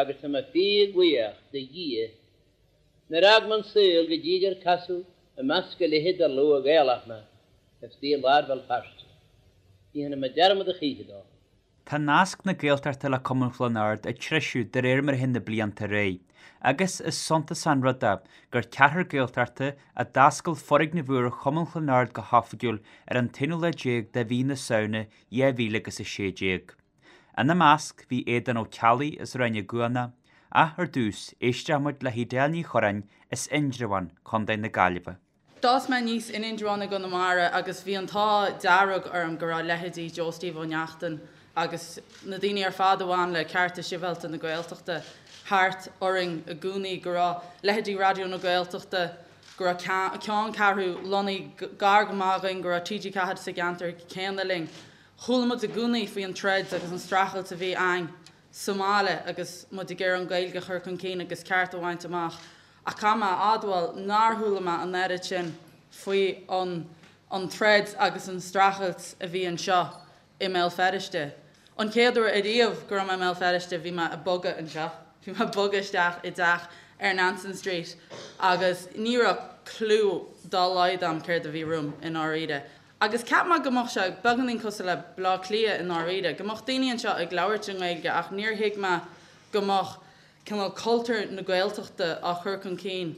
agus tá mé fíor bhuíoch de Dhia nár fhág mé an saol go dtí gur casadh i measc a leithéid de shlua Gaelach mé istigh i lár Bhéal Feirste. Ní dhéanfaidh mé dearmad a choíche dó. Tá nasc na Gaeltachta le Cumann Chluain Ard ag treisiú de réir mar a théann na blianta ar aghaidh, agus is suntasach an rud é gur ceathrar Gaeltachta a d'oscail foirgneamh úr Chumann Chluain Ard go hoifigiúil ar an t-aonú lá déag de mhí na Samhna 2016. Ina measc bhí Aodán Ó Ceallaigh as Ráth na gCuanach, ach ar dtús, éistfidh muid le hEdel Ní Churráin as Indreabhán, Co. na Gaillimhe. D'fhás mé aníos in Indreabhán i gConamara agus bhí an t-ádh dearg orm go raibh leithéidí Joe Steve Ó Neachtain agus na daoine ar fad a bhain le cearta sibhialta na Gaeltachta thart orainn i gcónaí, go raibh leithéidí Raidió na Gaeltachta, go raibh ceanncheathrú lonnaithe gar go maith dhúinn, go raibh TG4 sa gceantar céanna linn. Chuala muid i gcónaí faoi an troid agus an streachailt a bhí a'ainn sa mbaile agus muid ag iarraidh an Ghaeilge a chur chun cinn agus cearta a bhaint amach. Ach caithfidh mé a admháil nár chuala mé an oiread sin faoi an an troid agus an streachailt a bhí anseo i mBéal Feirste. An chéad uair ariamh go raibh mé i mBéal Feirste bhí mé ag bogadh anseo. Bhí mé ag bogadh isteach i dteach ar Nansen Street agus ní raibh clue dá laghad a'm céard a bhí romham i ndáiríre. Agus cheap mé go mbeadh sé beagáinín cosúil le Bleá Cliath i ndáiríre, go mbeadh daoine anseo ag labhairt i nGaeilge ach níor thuig mé go mbeadh cineál cultúr na Gaeltachta á chur chun cinn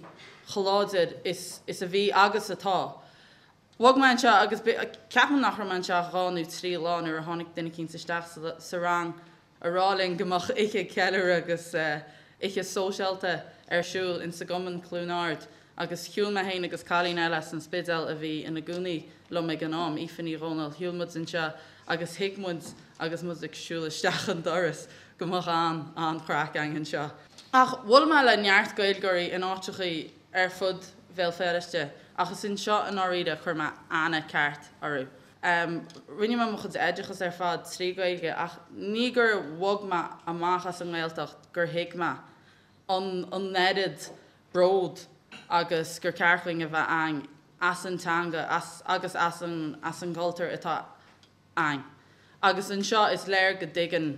chomh láidir is is a bhí agus atá. Bhog mé anseo agus ceapaim nach raibh mé anseo ach 2 nó 3 lá nuair a tháinig duine eicínt isteach sa rang a rá linn go mbeadh oíche ceiliúradh agus oíche sóisialta ar siúl insa gCumann Cluain Ard agus shiúil mé féin agus cailín eile as an Spidéal a bhí ina gcónaí liom ag an am, Aoife Ní Dhomhnaill, shiúil muid anseo agus thuig muid agus muid ag siúl isteach an doras go mbeadh an, an-chraic againn anseo. Ach bhuail mé le neart Gaeilgeoirí in áiteachaí ar fud Bhéal Feirste ach is anseo i ndáiríre a chuir mé aithne ceart orthu. Rinne mé mo chuid oideachas ar fad trí Ghaeilge ach ní gur bhog mé amach as an nGaeltacht gur thuig mé an an oiread bród agus gur ceart dhuinn a bheith a'ainn as an teanga as agus as an as an gcultúr atá a'ainn. Agus anseo is léir go dtuigeann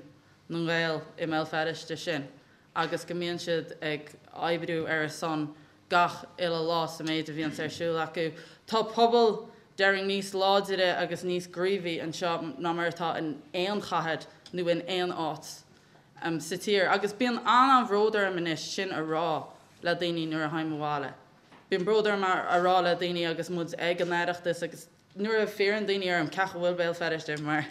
na Gaeil i mBéal Feirste sin agus go mbíonn siad ag oibriú ar a son gach uile lá sa méid a bhíonns ar siúl acu. Tá pobal, déarfainn, níos láidire agus níos gníomhaí anseo ná mar atá in aon chathair nó in aon áit sa tír. Agus bíonn an-an-bhród orm anois sin a rá le daoine nuair a théim abhaile. Bíonn bród orm a rá le daoine agus muid ag an Oireachtas agus nuair a fiafraíonn daoine orm cén chaoi a bhfuil Béal Feirste mar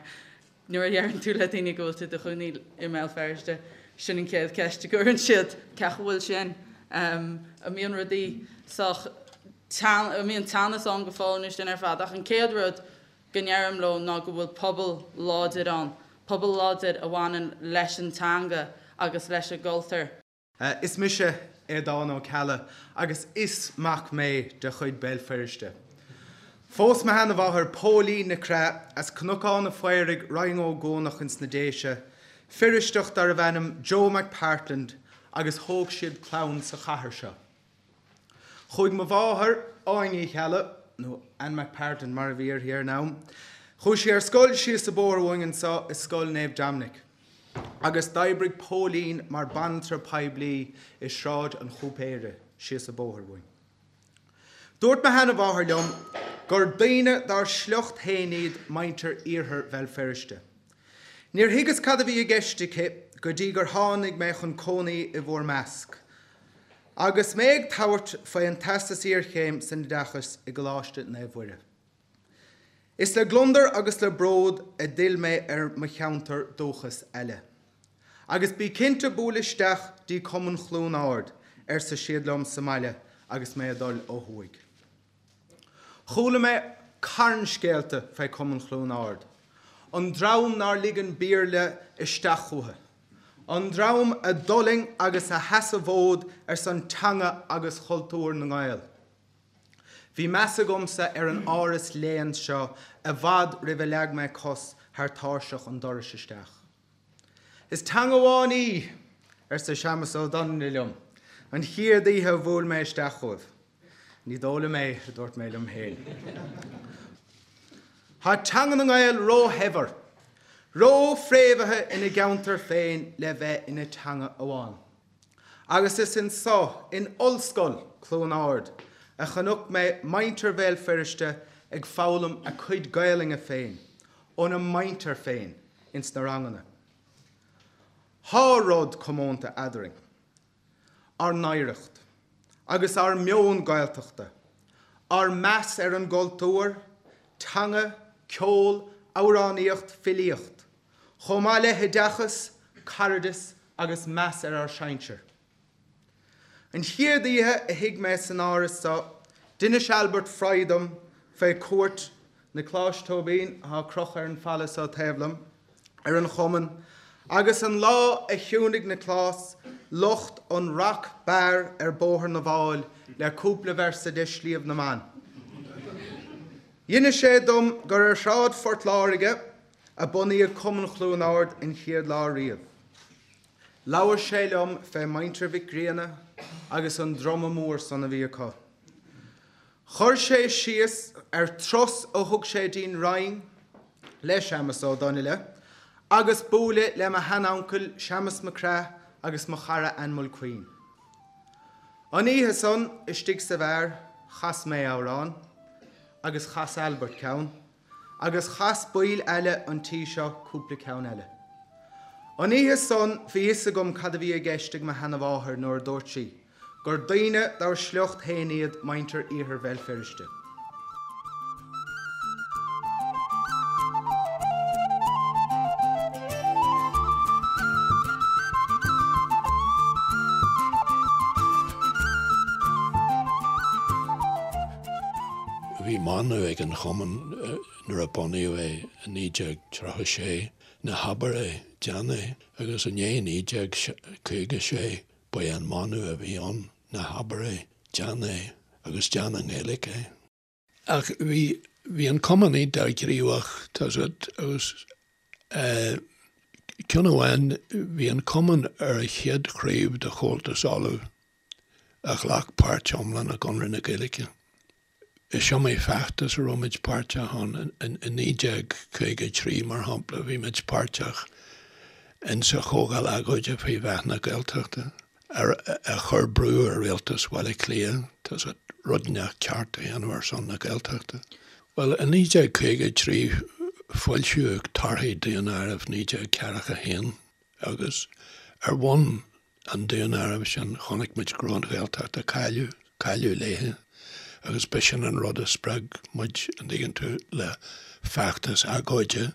Nuair a dheireann tú le daoine go bhfuil tú i do chónaí i mBéal Feirste, sin an chéad cheist a gcuireann siad, cén chaoi a bhfuil sin? An mbíonn rudaí sách teann, an mbíonn teannas ann go fóill nó sin ar fad. Ach an chéad rud go ndeirim leo ná go bhfuil pobal láidir ann, pobal láidir a bhaineann leis an teanga agus leis an gcultúr. Is mise Aodán Ó Ceallaigh agus is mac mé de chuid Béal Feirste. Phós mo sheanamháthair Póilín Nic Craith as Cnocán a' Phaoraigh, Rinn Ó gCuanach ins na Déise, Feirsteach darbh ainm Joe McPartland agus thóg siad clann sa chathair seo. Chuaigh mo mháthair, Áine Uí Cheallaigh, nó Ann McPartland mar a bhí uirthi ar an am, chuaigh sí ar scoil síos an bóthar uainn anseo i Scoil Naomh Dominic. Agus d'oibrigh Póilín mar banaltra poiblí i Sráid an Chúipéara, síos an bóthar uainn. Dúirt mo sheanamháthair liom gur daoine dár sliocht féin iad muintir Iarthar Bhéal Feirste. Níor thuigeas cad a bhí i gceist aici go dtí gur tháinig mé chun cónaí i bhur measc. Agus mé ag tabhairt faoi an Teastas Iarchéim san Oideachas i gColáiste Naomh Mhuire. Is le gliondar agus le bród a d'fhill mé ar mo cheantar dúchais eile. Agus bí cinnte buail isteach dtí Cumann Chluain Ard, arsa siad liom sa mbaile agus mé ag dul ó thuaidh. Chuala mé carn scéalta fé Cumann Chluain Ard. An dream nár lig an Béarla isteach chucu. An dream a d'fhulaing agus a sheas a bhfód ar son teanga agus chultúr na nGael. Bhí meas agamsa ar an áras léann seo i bhfad roimh a leag mé cos thar tairseach an dorais isteach. Is teanga amháin í! arsa Séamus Ó Donnaile liom an chéad oíche a bhuail mé isteach chugaibh. Ní dóigh liom é, a dúirt mé liom féin. Tá teanga na nGael róshaibhir, rófhréamhaithe ina gceantar féin le bheith ina teanga amháin. Agus is anso, in Ollscoil Chluain Ard, a chonaic mé muintir Bhéal Feirste ag foghlaim a cuid Gaelainne féin óna muintir féin ins na ranganna. Thá rud comónta eadrainn, ár n-oidhreacht, agus ár meon Gaeltachta, ár meas ar an gcultúr, teanga, ceol, amhránaíocht, filíocht, chomh maith le hoideachas, cairdeas agus meas ar ár sinsir. An chéad oíche a shuigh mé san áras so, d'inis Albert Fry dom fé chuairt Niocláis Tóibín, atá crochta ar an falla so taobh liom, ar an Chumann, agus an lá a chiúnaigh Nioclás lucht an Rock Bar ar Bóthar na bhFál le cúpla véarsa de Sliabh na mBan. D'inis sé dom gur ar Shráid Phort Láirge a bunaíodh Cumann Chluain Ard an chéad lá riamh. Labhair sé liom fé Muintir Mhic Grianna agus an druma mór san a bhí acu. Chuir sé síos ar turas a thug sé dtí'n Rinn le Séamus Ó Donnaile agus bualadh le mo shean-uncail Séamus Mac Craith agus mo chara Ann Mulqueen. An oíche san, istigh sa bheár, chas mé amhrán, agus chas Albert ceann, agus chas baill eile an tí seo cúpla ceann eile. An oíche san bhí fhios agam cad a bhí i gceist ag mo sheanamháthair nuair a dúirt sí gur daoine dár sliocht féin iad muintir Iarthar Bhéal Feirste. Bhí mana ag an Chumann nuair a bunaíodh é i 1936, Ná habair é, déan é, agus i ndiaidh 1956 ba é an mana a bhí ann, Ná habair é, déan é, agus déan i nGaeilge é. Ach bhí, bhí an Cumann iontach gníomhach, tá 's agat, agus ceann amháin, bhí an Cumann ar an chéad chraobh de Chomhaltas Uladh a ghlac páirt iomlán i gConradh na Gaeilge. Is iomaí feachtas a raibh muid páirteach ann. In 1953, mar shampla, bhí muid páirteach insa Chomhdháil Agóide faoi mheath na Gaeltachta, a chuir brú ar Rialtas Bhaile Átha Cliath, tá 's agat, rud inteacht ceart a dhéanamh ar son na Gaeltachta. Bhuel, i 1953 foilsíodh torthaí Daonáireamh 1941 agus ar bhonn an daonáirimh sin, chonaic muid go raibh an Ghaeltacht á cailleadh, cailleadh léithe, agus b'shin an rud a spreag muid, an dtuigeann tú, le feachtas agóide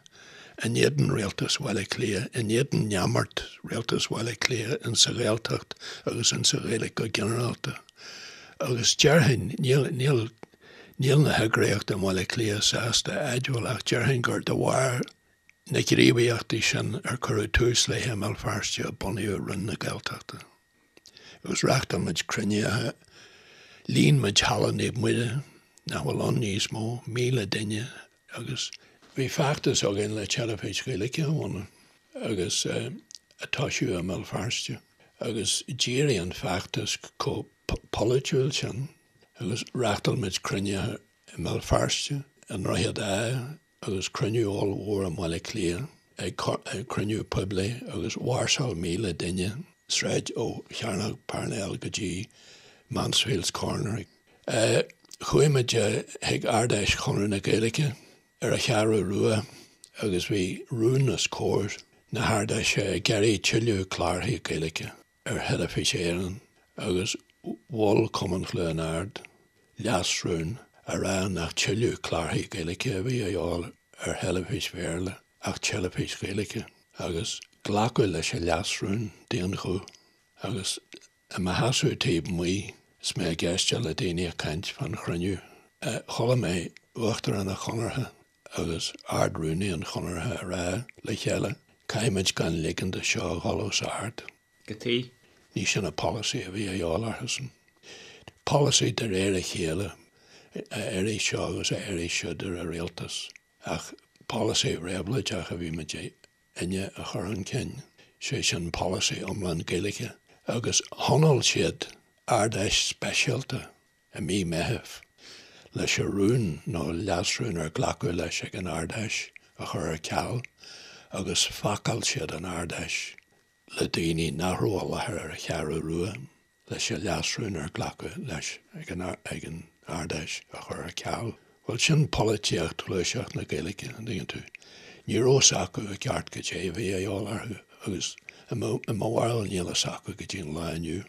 in éadan Rialtas Bhaile Átha Cliath, in éadan neamart Rialtas Bhaile Átha Cliath in sa Ghaeltacht agus in sa Ghaeilge go ginearálta. Agus déarfainn, níl, níl, níl na heagraíochtaí i mBaile Átha Cliath sásta a admháil ach déarfainn gur de bharr na gníomhaíochtaí sin ar cuireadh tús léi i mBéal Feirste a bunaíodh Roinn na Gaeltachta. Agus reáchtáil muid cruinnithe, líon muid Halla Naomh Muire, nach bhfuil ann níos mó, 1,000 duine agus bhí feachtas againn le teilifís Ghaeilge a bhunú agus a toisiú i mBéal Feirste agus d'éirigh an feachtas chomh polaitiúil sin agus reáchtáil muid cruinnithe i mBéal Feirste, i nDroichead Átha, agus cruinniú ollmhór i mBaile Átha Cliath, ag cruinniú poiblí agus mháirseáil 1,000 duine sráid ó Chearnóg Parnell go dtí Mansfield's Corner. Chuaigh muid chuig Ard-Fheis Chonradh na Gaeilge ar an Cheathrú Rua agus bhí rún os comhair na hArd-Fheise ag iarraidh tuilleadh clárthaí Gaeilge. ar Theilifís Éireann agus mhol Cumann Chluain Ard leasrún á rá nach tuilleadh clárthaí Gaeilge a bhí a dhíobháil ar theilifís Bhéarla ach teilifís Ghaeilge agus glacadh leis an leasrún d'aon ghuth agus i mo sheasamh taobh amuigh is mé ag éisteacht le daoine ag caint fán chruinniú chuala mé Uachtarán an Chonartha. agus Ard-Rúnaí an Chonartha a rá le chéile, caithfimid gan ligean do seo a dhul os ard. Cad chuige? Ní sin an polasaí a bhí a dhíobháil orthusan. Polasaí de réir a chéile a éirigh seo agus a éirigh siúd ar an rialtas, ach polasaí réabhlóideach a bhí muidinne a chur chun cinn, sé sin polasaí iomlán Gaeilge. Agus thionóil siad Ard-Fheis speisialta i mí Meithimh leis an rún nó leasrún ar glacadh leis ag an Ard-Fheis a chur ar ceal agus phacáil siad an Ard-Fheis le daoine nach raibh i láthair ar an Cheathrú Rua leis an leasrún ar glacadh leis ag an Ard-Fheis a chur ar ceal. Bhuel, sin polaitíocht ghluaiseacht na Gaeilge, an dtuigeann tú. Ní raibh fhios acu i gceart goidé a bhí a dhíobháil orthu agus i mo bharúil níl fhios acu go dtí an lá inniu.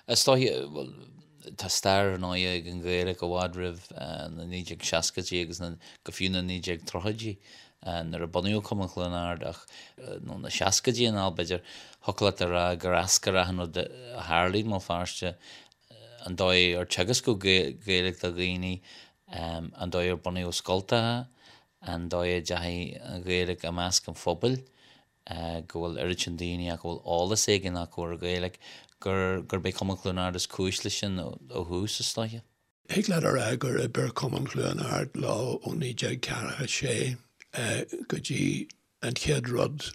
Is dóiche, bhuel, tá stair ar ndóigh ag an Ghaeilge i bhfad roimh na 1960idí agus na, go fiú na 1930idí nuair a bunaíodh Cumann Chluain Ard ach, nó na seascaidí anall b'fhéidir, thiocfadh leat a rá gur eascair achan rud a tharlaigh i mBéal Feirste, an dóigh ar teagascadh Gaeilge do dhaoine, an dóigh ar bunaíodh scoltacha, an dóigh a dteachaigh an Ghaeilge i measc an phobail. go bhfuil oiread sin daoine ach go bhfuil eolas éigin acu ar an Ghaeilge, gur, gurb é Cumann Chluain Ard is cúis leis sin ó thús, is dóiche. Thig leat a rá gur oibir Cumann Chluain Ard leo ó 1946 go dtí an chéad rud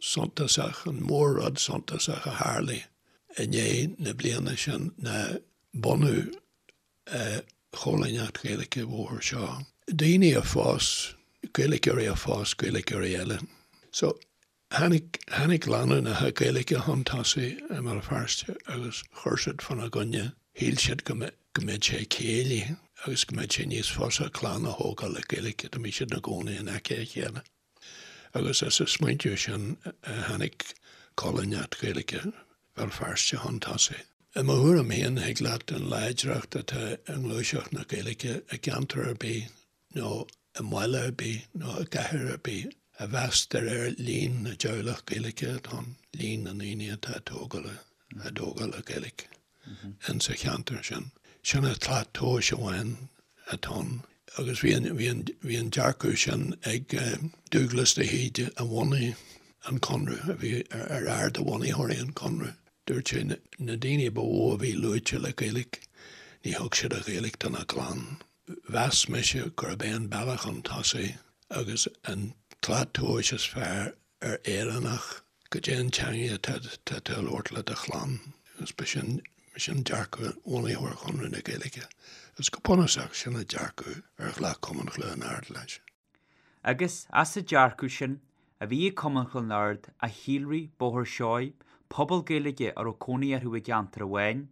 suntasach, an mór-rud suntasach a tharlaigh i ndiaidh na bliana sin ná bunú Choilíneacht Ghaeilge Bhóthar Seoighe. Daoine a phós, Gaeilgeoirí a phós Gaeilgeoirí eile. So, tháinig, tháinig lánúineacha Gaeilge chun tosaigh i mBéal Feirste agus chuir siad fána gcoinne, shíl siad go mbeadh, go mbeadh sé céillí agus go mbeadh sé níos fusa clann a thógáil le Gaeilge dá mbeadh siad ina gcónaí in aice a chéile. Agus as an smaointiú sin a tháinig Coilíneacht Ghaeilge Bhéal Feirste chun tosaigh. I mo thuairim féin, thig leat an láidreacht atá i ngluaiseacht na Gaeilge i gceantar ar bith nó i mbaile ar bith nó i gcathair ar bith a mheas de réir líon na dteaghlach Gaeilge atá ann, líon na ndaoine atá ag tógáil á dtógáil le Gaeilge in sa cheantar sin. Sin an tslat tomhais amháin atá ann. Agus bhí an, bhí an, bhí an dearcadh sin ag Dúglas de hÍde a bhunaigh an Conradh, a bhí ar fhear de bhunaitheoirí an Chonradh. Dúirt sé na daoine ba mhó a bhí luaite le Gaeilge, ní thug siad an Ghaeilge dona gclann. Mheas mise gurb é an bealach chun tosaigh agus an tslat tomhais is fearr ar Éireannach goidé an teangaidh atá tú a labhairt le do chlann agus ba sin sin dearcadh bhunaitheoir Chonradh na Gaeilge agus go bunúsach sin an dearcadh ar ghlac Cumann Chluain Ard leis. Agus as an dearcadh sin a bhí ag Cumann Chluain Ard a shíolraigh Bóthar Seoighe, pobal Gaeilge a raibh cónaí orthu i gceantar amháin,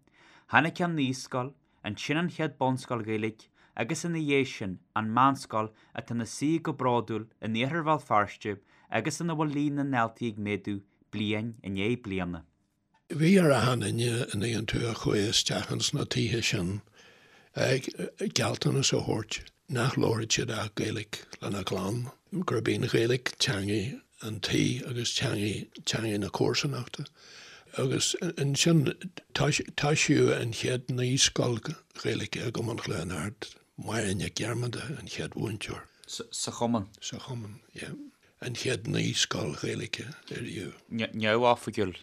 tháinig an naíscoil, Ansin an chéad bunscoil Ghaeilge agus ina dhiaidh sin an meánscoil atá ina suí go bródúil in iarthar Bhéal Feirste agus ina bhfuil líon na ndaltaí ag méadú bliain i ndiaidh bliana. Bhí ar achan duine an dtuigeann tú a chuaigh isteach ins na tithe sin gealltanas a thabhairt nach labharfadh siad ach Gaeilge lena gclann, gurb í an Ghaeilge teangaidh an tí agus teangaidh, teangaidh na comharsanachta. Agus ansin toisíodh an chéad naíscoil Ghaeilge i gCumann Chluain Ard, Máire Nic Dhiarmada an chéad mhúinteoir. Sa Chumann? Sa Chumann, yeah. An chéad naíscoil Ghaeilge ariamh. Neamhoifigiúil.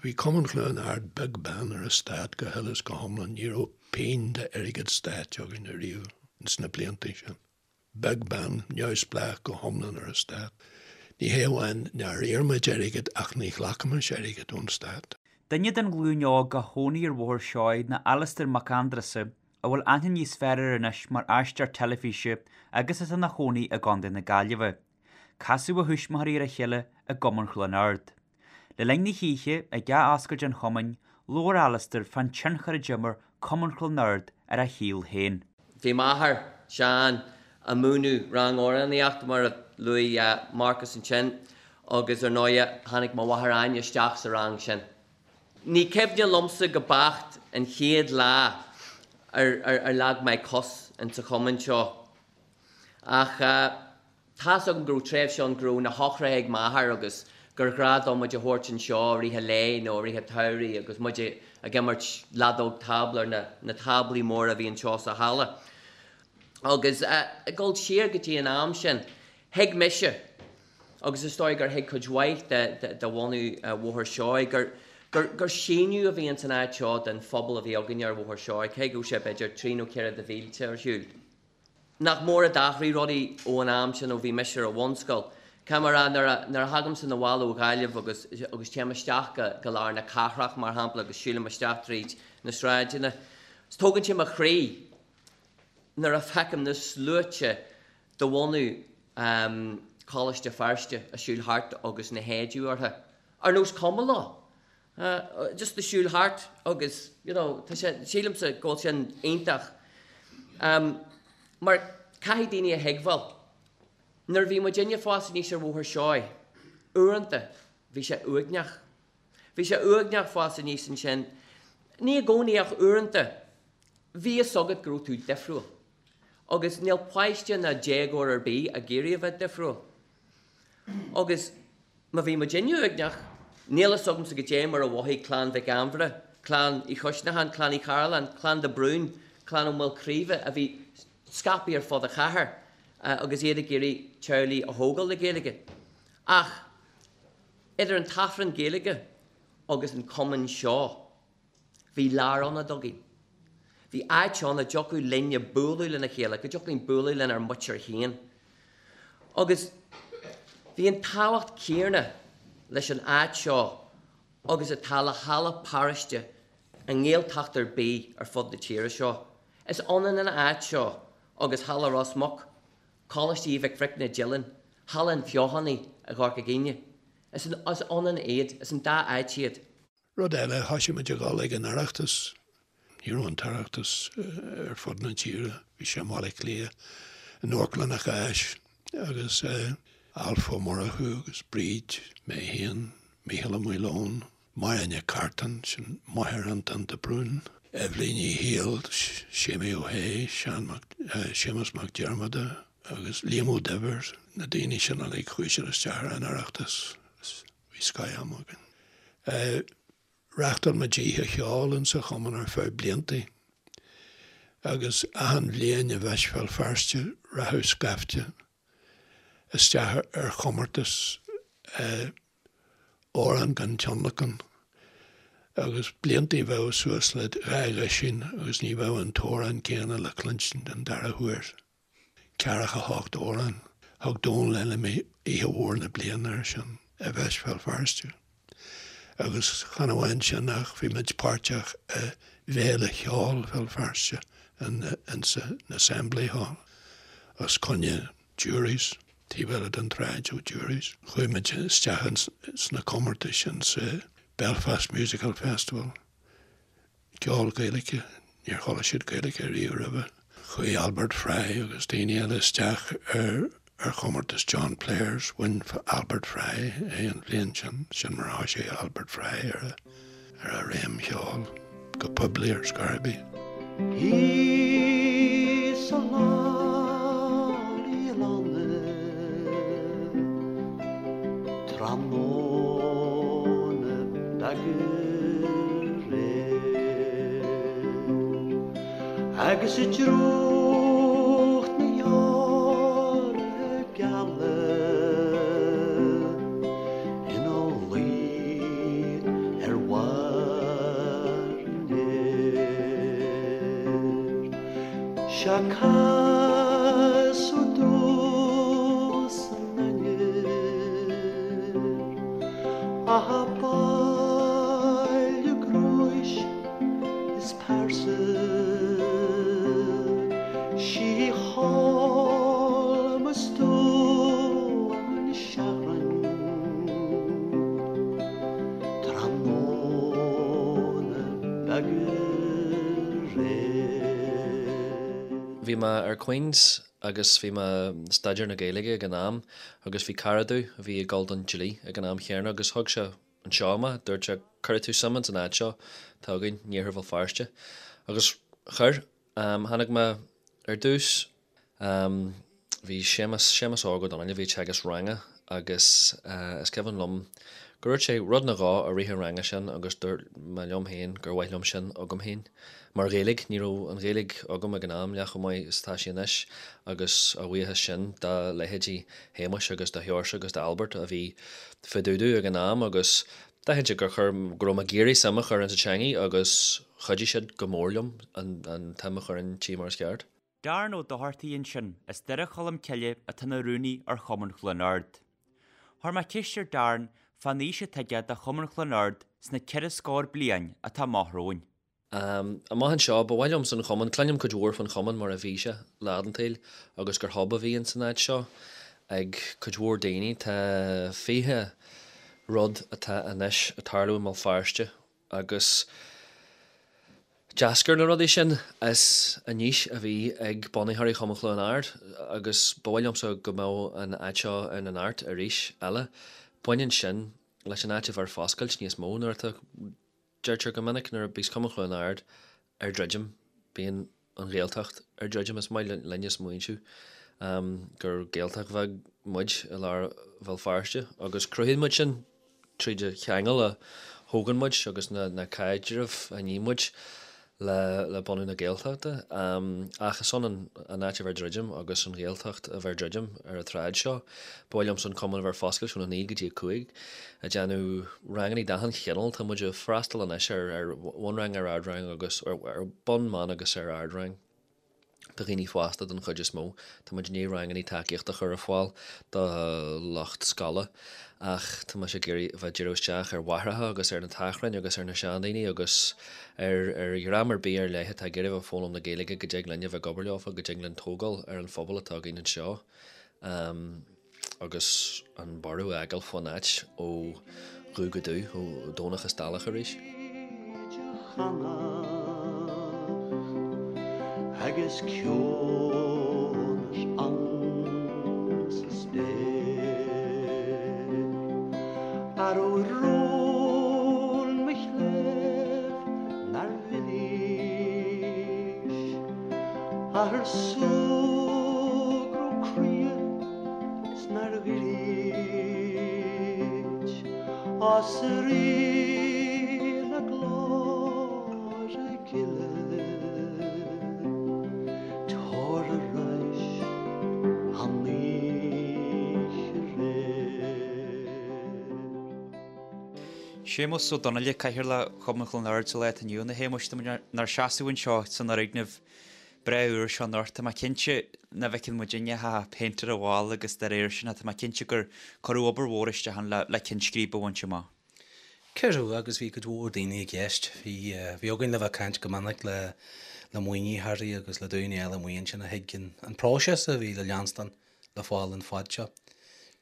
Bhí Cumann Chluain Ard beag beann ar an stát go huile is go hiomlán, ní raibh pingin d'airgead stáit againn ariamh ins na blianta sin. Beag beann, neamhspleách go hiomlán ar an stát. Ní hé amháin nár iarr muid airgead ach ní ghlacaimis airgead ón stát. Duine den ghlúin óg a chónaigh ar Bhóthar Seoighe ná Alastair Mac Aindreasa, a bhfuil aithne níos fearr air anois mar aisteoir teilifíse agus atá ina chónaí i gContae na Gaillimhe. Casadh a thuismitheoirí ar a chéile i gCumann Chluain Ard. Le linn na hoíche, ag athoscailt an chumainn, labhair Alastair fán tionchar a d'imir Cumann Chluain Ard ar a shaol féin. Bhí m'athair, Seán, ag múineadh rang amhránaíochta, mar a luaigh Marcus ansin, agus ar ndóighe tháinig mo mháthair Áine isteach sa rang sin. Ní cuimhne liomsa go beacht an chéad lá ar ar leag mé cos insa chumann seo ach, Tá's agam go raibh tréimhse ann go raibh na heochracha ag m'athair agus gur ghnáth dó muid a thabhairt anseo i rith an lae nó i rith an tsamhraidh agus muid ag imirt leadóg tábla ar na táblaí móra a bhí anseo sa halla. Agus ag dul siar go dtí an am sin, thuig mise, agus is dóigh gur thuig cuid mhaith de bhunadh Bhóthar Seoighe, gur, gur, gur síneadh a bhí ins an áit seo den phobal a bhí againne ar Bhóthar Seoighe, cé go raibh sé b'fhéidir trí nó ceithre de mhílte ar shiúl. Nach mór a d'athraigh rudaí ó an am sin ó bhí mise ar an bhunscoil. Caithfidh mé a rá, nuair a, nuair a thagaimse 'na bhaile ó Ghaillimh agus, agus téim isteach go, go lár na cathrach, mar shampla, agus siúlaim isteach tríd na sráideanna, tógann sé mo chroí nuair a feicim na sluaite de bhunadh Choláiste Feirste ag siúl thart agus na héadaí orthu, ar nós cuma leo, just ag siúl thart agus, you know, tá sé, sílimse go bhfuil sin iontach. Mar caithfidh daoine a thuigbheáil, nuair a bhí muidinne ag fás aníos ar Bhóthar Seoighe, uaireanta bhí sé uaigneach. Bhí sé uaigneach fás aníos ansin, ní i gcónaí ach uaireanta. Bhí fhios agat go raibh tú difriúil. Agus níl páiste ná déagóir ar bith ag iarraidh a bheith difriúil. Agus má bhí muidinne uaigneach, níl fhios agamsa goidé mar a mhothaigh clann Mhic Ainmhire, clann Uí Choisneacháin, clann Uí Chairealláin, clann de Brún, clann Ó Maolchraoibhe a bhí scaipthe ar fud an chathair agus iad ag iarraidh teaghlaigh a thógáil le Gaeilge. Ach idir an tAifreann Gaeilge agus an cumann seo, Bhí lárionad againn. Bhí áit ann a dtiocfadh linne bualadh lena chéile, go dtiocfadh linn bualadh lenár muintir féin. Agus bhí an tábhacht céanna leis an áit seo agus atá le halla paróiste i nGaeltacht ar bith ar fud na tíre seo. Is ionann an áit seo agus Halla Ros Muc, Coláiste Uí Mhic Bhricne Dillon, Halla an Fheothánaigh i gCorca Dhuibhne. Is ionann iad, is an dá áit iad. Rud eile, thoisigh muid a dhul ag an Oireachtas. Ní raibh an tOireachtas ar fud na tíre, bhí sé i mBaile Átha Cliath, in Amharclann an Cháis, agus Alf Ó Murchú agus Bríd, mé féin, Mícheál Ó Maoileoin, Máire Nic Cartáin, sin máthair Antoin de Brún, Eibhlín Uí Shiail, Séimí Ó hAodha, Seán Mac, Séamus Mac Diarmada agus Liam Ó Duibhir, na daoine sin uilig, chuaigh siad isteach ar an Oireachtas. Bhí scoth-am againn. Reáchtáil muid oíche cheoil insa chumann ar feadh bliantaí agus achan bhliain i bhFeis Bhéal Feirste rachadh scaifte isteach ar chomórtas amhrán gan tionlacan agus bliantaí bheadh suas le 12 dhosaen agus ní bheadh an t-amhrán céanna le cluinstin den dara huair. Ceathracha hocht amhrán. Thug Dónal Fheilimí Oíche Mhór na Bliana air sin i bhFeis Bhéal Feirste. Agus chan amháin sin ach bhí muid páirteach i bhFéile Cheoil Bhéal Feirste insa Assembly Hall os coinne Jury's, taobh eile den tsráid ó Jury's. Chuaigh muid isteach sna comórtais insa Belfast Musical Festival. Ceol Gaeilge, níor chuala siad Gaeilge riamh roimhe. Chuaigh Albert Fry agus daoine eile isteach ar ar chomórtas John Players, bhain Albert Fry é an bhliain sin, sin mar a thoisigh Albert Fry ar a ar a réim cheoil go poiblí ar scor ar bith. Thíos sa lár i lanna tráthnóna beag aréir agus i dtrúcht na heorra geala ina luí ar bharr an fhéir. Sea casadh domh san aniar A baile gnóis is pearsa Sí thall mo stuaim seachran Tráthnóna beag aréir. Bhí mé ar Queen's agus bhí mé ag staidéar na Gaeilge ag an am agus bhí cara domh a bhí ag dul don dlí ag an am chéanna agus thug sé anseo mé, dúirt sé cuirfidh tú suim ins an áit seo atá againn in Iarthar Bhéal Feirste agus chuir. Tháinig mé ar dtús, bhí Séamus, Séamus Óg Ó Donnaile, a bhí ag teagasc ranga agus is cuimhin liom gur dhúirt sé rud nó dhó i rith an ranga sin agus dúirt mé liom féin gur mhaith liom sin agam féin. Mar Ghaeilge, ní raibh an Ghaeilge agam ag an am leath chomh maith is atá sí anois agus a bhuíochas sin do leithéidí Shéamuis agus do Sheoirse agus d'Albert a bhí fá dtaobh domh ag an am agus d'aithin siad gur chuir, go raibh mé ag iarraidh suim a chur insa teangaidh agus chuidigh siad go mór liom an tsuim a chur inti mar is ceart. Darren Ó Dochartaigh ansin as Doire Cholm Cille atá ina rúnaí ar Chumann Chluain Ard. Chuir mé ceist ar Darren fán fhís atá aige do Chumann Chluain Ard sna 4 scór bliain atá amach romhainn. Amach anseo, ba mhaith liomsa an Chumann, cluinim cuid mhór faoin Chumann mar a bhí sé lá den tsaol agus gur hub a bhí ins an áit seo ag cuid mhór daoine. Tá 20 rud atá anois ag tarlú i mBéal Feirste agus d'eascair na rudaí sin as an fhís a bhí ag bunaitheoirí Chumann Chluain Ard agus ba mhaith liomsa go mbeadh an áit seo ina neart arís eile. Baineann sin leis an áit a bheith ar foscailt níos mó nuair atá, deirtear go minic, nuair a bíos Cumann Chluain Ard ar druidim, bíonn an Ghaeltacht ar druidim. Is maith linne smaointiú gur Gaeltacht bheag muid i lár Bhéal Feirste agus cruthaíonn muid sin tríd an cheangal a thógann muid agus na caidrimh a ní muid le bunú na Gaeltachta. Ach is ionann an áit a bheith ar druidim agus an Ghaeltacht a bheith ar druidim ar an tsráid seo. Ba mhaith liomsa an cumann a bheith ar foscailt óna 9 go dtí 5, ag déanamh rangannaí d'achan chineál. Tá muid ag freastal anois ar bhunrang, ar ardrang agus ar bun, meán agus ar ardrang do dhaoine fásta don chuid is mó. Tá muid i ndiaidh rangannaí tacaíochta a chur ar fáil do lucht scoile ach tá mise ag iarraidh a bheith ag díriú isteach ar mháithreacha agus ar na tachráin agus ar na seandaoine agus ar ar dhream ar bith ar leith atá ag iarraidh a bheith ag foghlaim na Gaeilge go dtig linn a bheith ag obair leofa, go dtig linn tógáil ar an phobal atá againn anseo. Agus an borradh a fhágáil fán áit ó dhubh go dubh, ó Dhomhnach is Dálach arís. Agus ciúnas ann sa spéir. Arú rún mo chléibh nár mhilís. Athair súgradh croí 's nár dhruid as Rí na glóire gile tabhair arais an oíche aréir. Séamus Ó Donnaile, Cathaoirleach Chumann Chluain Ard sa lá atá inniu ann. A Shéamuis, tá muid inár seasamh anseo san fhoirgneamh breá úr seo anocht. Tá mé cinnte nach bhfeiceann muidinne ach péint ar an bhalla agus dá réir sin tá mé cinnte gur cuireadh obair mhór isteach ann le ceann scríbe a bhaint amach. Cuireadh agus bhí cuid mhór daoine i gceist. Bhí, bhí againn le bheith ag caint go minic le, le maoinitheoirí agus le daoine eile amuigh ansin a thuig an, an próiseas a bhí le leanstan le fáil an fad seo.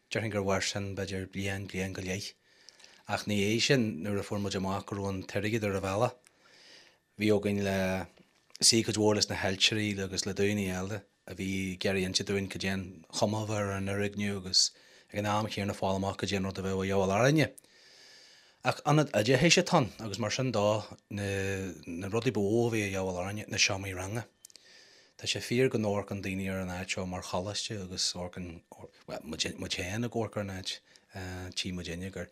Déarfainn gur mhair sin b'fhéidir bliain, bliain go leith. Ach ina dhiaidh sin nuair a fuair muid amach go raibh an t-airgead ar an bhealach, Bhí againn le suí cuid mhór leis na hailtirí agus le daoine eile a bhí ag iarraidh inse dúinn cad é an chuma a bheadh ar an fhoirgneamh agus ag an am chéanna fáil amach cad é an rud a bheadh a dhíobháil orainne. Ach ionad oideachais atá ann agus mar sin dó na na rudaí ba mhó a bhí a dhíobháil orainne na seomraí ranga. Tá sé fíor go n-amharcann daoine ar an áit seo mar choláiste agus amharcann, bhuel, muid, muid féin ag amharc ar an áit, tchí muidinne gur,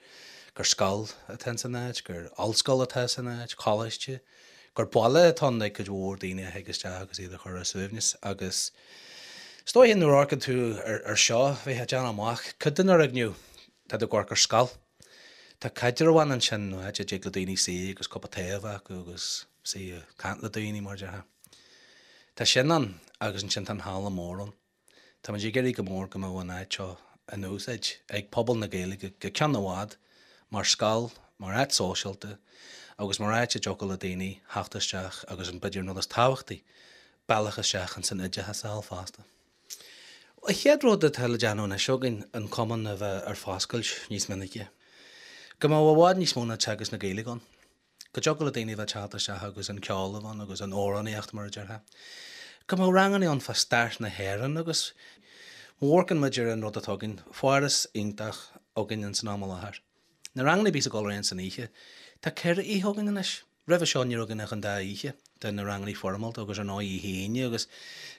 gur scoil atá ins an áit, gur ollscoil atá san áit, coláiste, gur baile atá ann ag cuid mhór daoine a thig isteach agus iad a chur ar a suaimhneas agus is dóiche nuair a amharcann tú ar, ar seo, bheifeá ag déanamh amach cuid den fhoirgneamh, tá tú ag amharc ar scoil. Tá caidreamh ann ansin, nó áit a dtig le daoine suí agus cupa tae a bheith acu agus suí ag caint le daoine mar a déarfá. Tá sin ann agus ansin tá an halla mór ann. Táimid ag iarraidh go mór go mbeadh an áit seo in úsáid ag pobal na Gaeilge go ceann i bhfad mar scoil, mar áit sóisialta agus mar áit a dtiocfadh le daoine theacht isteach agus an b'fhéidir an rud is tábhachtaí, bealach isteach ins an oideachas a fháil fosta. An chéad rud atá le déanamh anois againn an cumann a bheith ar foscailt níos minice. Go mbeadh i bhfad níos mó ná teagasc na Gaeilge ann. Go dtiocfadh le daoine a bheith ag teacht isteach agus an ceol a bheith ann agus an amhránaíocht mar a déarfá. Go mbeadh ranganna ann fá stair na hÉireann agus má amharcann muid ar an rud atá againn, foras iontach againn ins an am i láthair. Na ranganna a bhíos ag dul ar aghaidh san oíche, tá 4 oíche againn anois. Roimhe seo ní raibh againn ach an dá oíche de na ranganna foirmeálta agus ar ndóigh oíche Aoine agus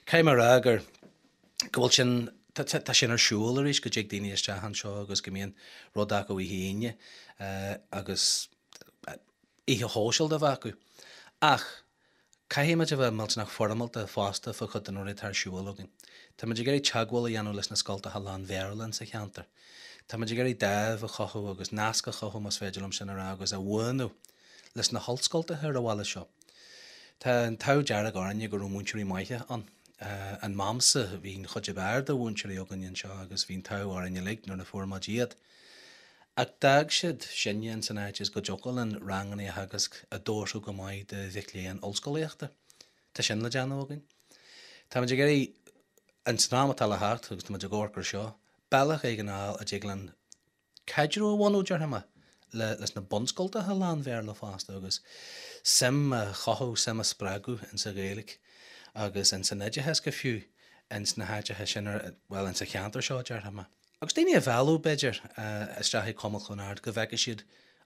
caithfidh mé a rá gur go bhfuil sin, tá sin ar siúl arís go dtig daoine isteach anseo agus go mbíonn rud acu oíche Aoine agus oíche shóisialta a bheith acu. Ach Caithfidh muid a bheith millteanach foirmeálta fosta fá chuid de na rudaí atá ar siúl againn. Tá muid ag iarraidh teagmháil a dhéanamh leis na scoltacha lán-Bhéarla insa cheantar. Tá muid ag iarraidh dáimh a chothú agus nasc a chothú, más féidir liom sin a rá, agus a bhuanú leis na hollscoltacha ar an bhaile seo. Tá an t-ádh dearg orainne go raibh múinteoirí maithe ann. In m'amsa bhí an chuid ab fhearr de mhúinteoirí againn anseo agus bhí an t-ádh orainn uilig nuair a fuair muid iad. Ach d'fhág siad sinne ins an áit is go dtiocfadh linn ranganna a theagasc a d'fhóirfeadh go maith do mhic léinn ollscolaíochta. Tá sin le déanamh againn. Táimid ag iarraidh, ins an am atá le theacht, agus táimid ag amharc ar seo, bealach éigin a fháil a dtig linn caidreamh a bhunú, déarfaidh mé, le leis na bunscoltacha lán-Bhéarla fosta agus suim a chothú, suim a spreagadh ins an Ghaeilge agus ins an oideachas go fiú ins na háiteacha sin, bhuel, ins an cheantar seo, déarfaidh mé. Agus daoine a mhealladh, b'fhéidir, isteach ag Cumann Chluain Ard go bhfeicfidh siad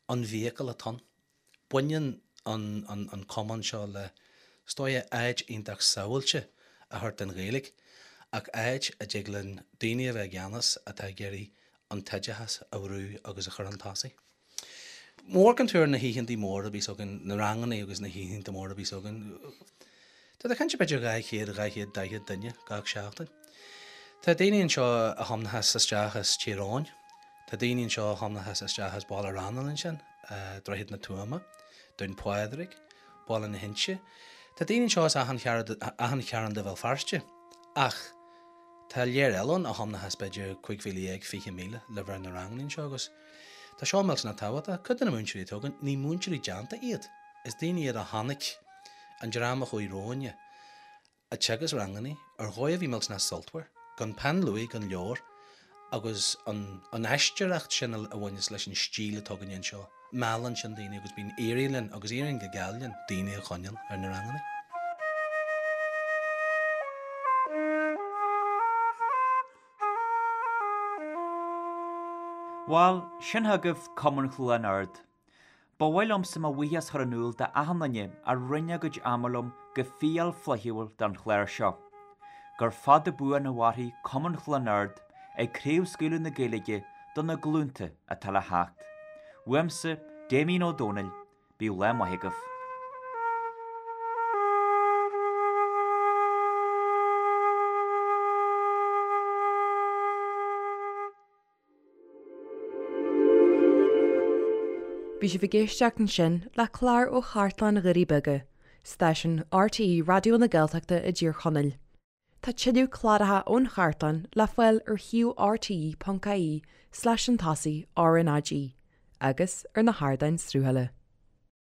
an vehicle atá ann. Baineann an cumann seo le, is dóigh, áit iontach sábháilte a thabhairt don Ghaeilge, ach áit a dtig linn daoine a bheith i gceannas atá ag iarraidh an t-oideachas a bhrú agus a chur chun tosaigh. Má amharcann tú ar na hoícheantaí móra a bhíos againn, na ranganna agus na hoícheanta móra a bhíos againn, tá tú ag caint b'fhéidir 200, 240 duine gach seachtain. Tá daoine anseo a thiomnachas isteach as Tír Eoghain, tá daoine anseo a thiomnachas isteach as Baile Raghnaill ansin, Droichead na Tuama, Dún Pádraig, Baile na hInse. Tá daoine anseo as achan chearn de Bhéal Feirste ach tá léir eile ann a thiomnachas b'fhéidir 15,000, 20,000 le bheith ar na ranganna anseo agus Tá seo millteanach tábhachtach. Cuid de na múinteoirí atá againn, ní múinteoirí déanta iad. Is daoine iad a chonaic an dream a chuaigh romhainne ag teagasc ranganna ar dhóigh a bhí millteanach sultmhar, gan peann luaidhe, gan leabhar, agus an an aisteoireacht sin a bhaineas leis an stíl atá againne anseo. Meallann sin daoine agus bíonn éiríonn linn, agus éiríonn go geal linn, daoine a choinneáil ar na ranganna. Bhal, sin chugaibh Cumann Chluain Ard. Ba mhaith liomsa mo bhuíochas a chur in iúl d'achan duine a roinn a gcuid ama liom go fial flaithiúil don chlár seo. Gur fada buan a mhairfidh Cumann Chluain Ard ag craobhscaoileadh na Gaeilge do na glúnta atá le theacht. Uaimse, Damien Ó Dónaill, Bíodh lá maith agaibh. Bhí sibh ag éisteacht ansin le clár ó Chartlann Dhoirí Beaga, stáisiún RTÉ Raidió na Gaeltachta i dTír Chonaill. Tá tuilleadh cláracha ón chartlann le fáil ar shuíomh rte.ie slash chun tosaigh RnaG agus ar na hardáin sruthála.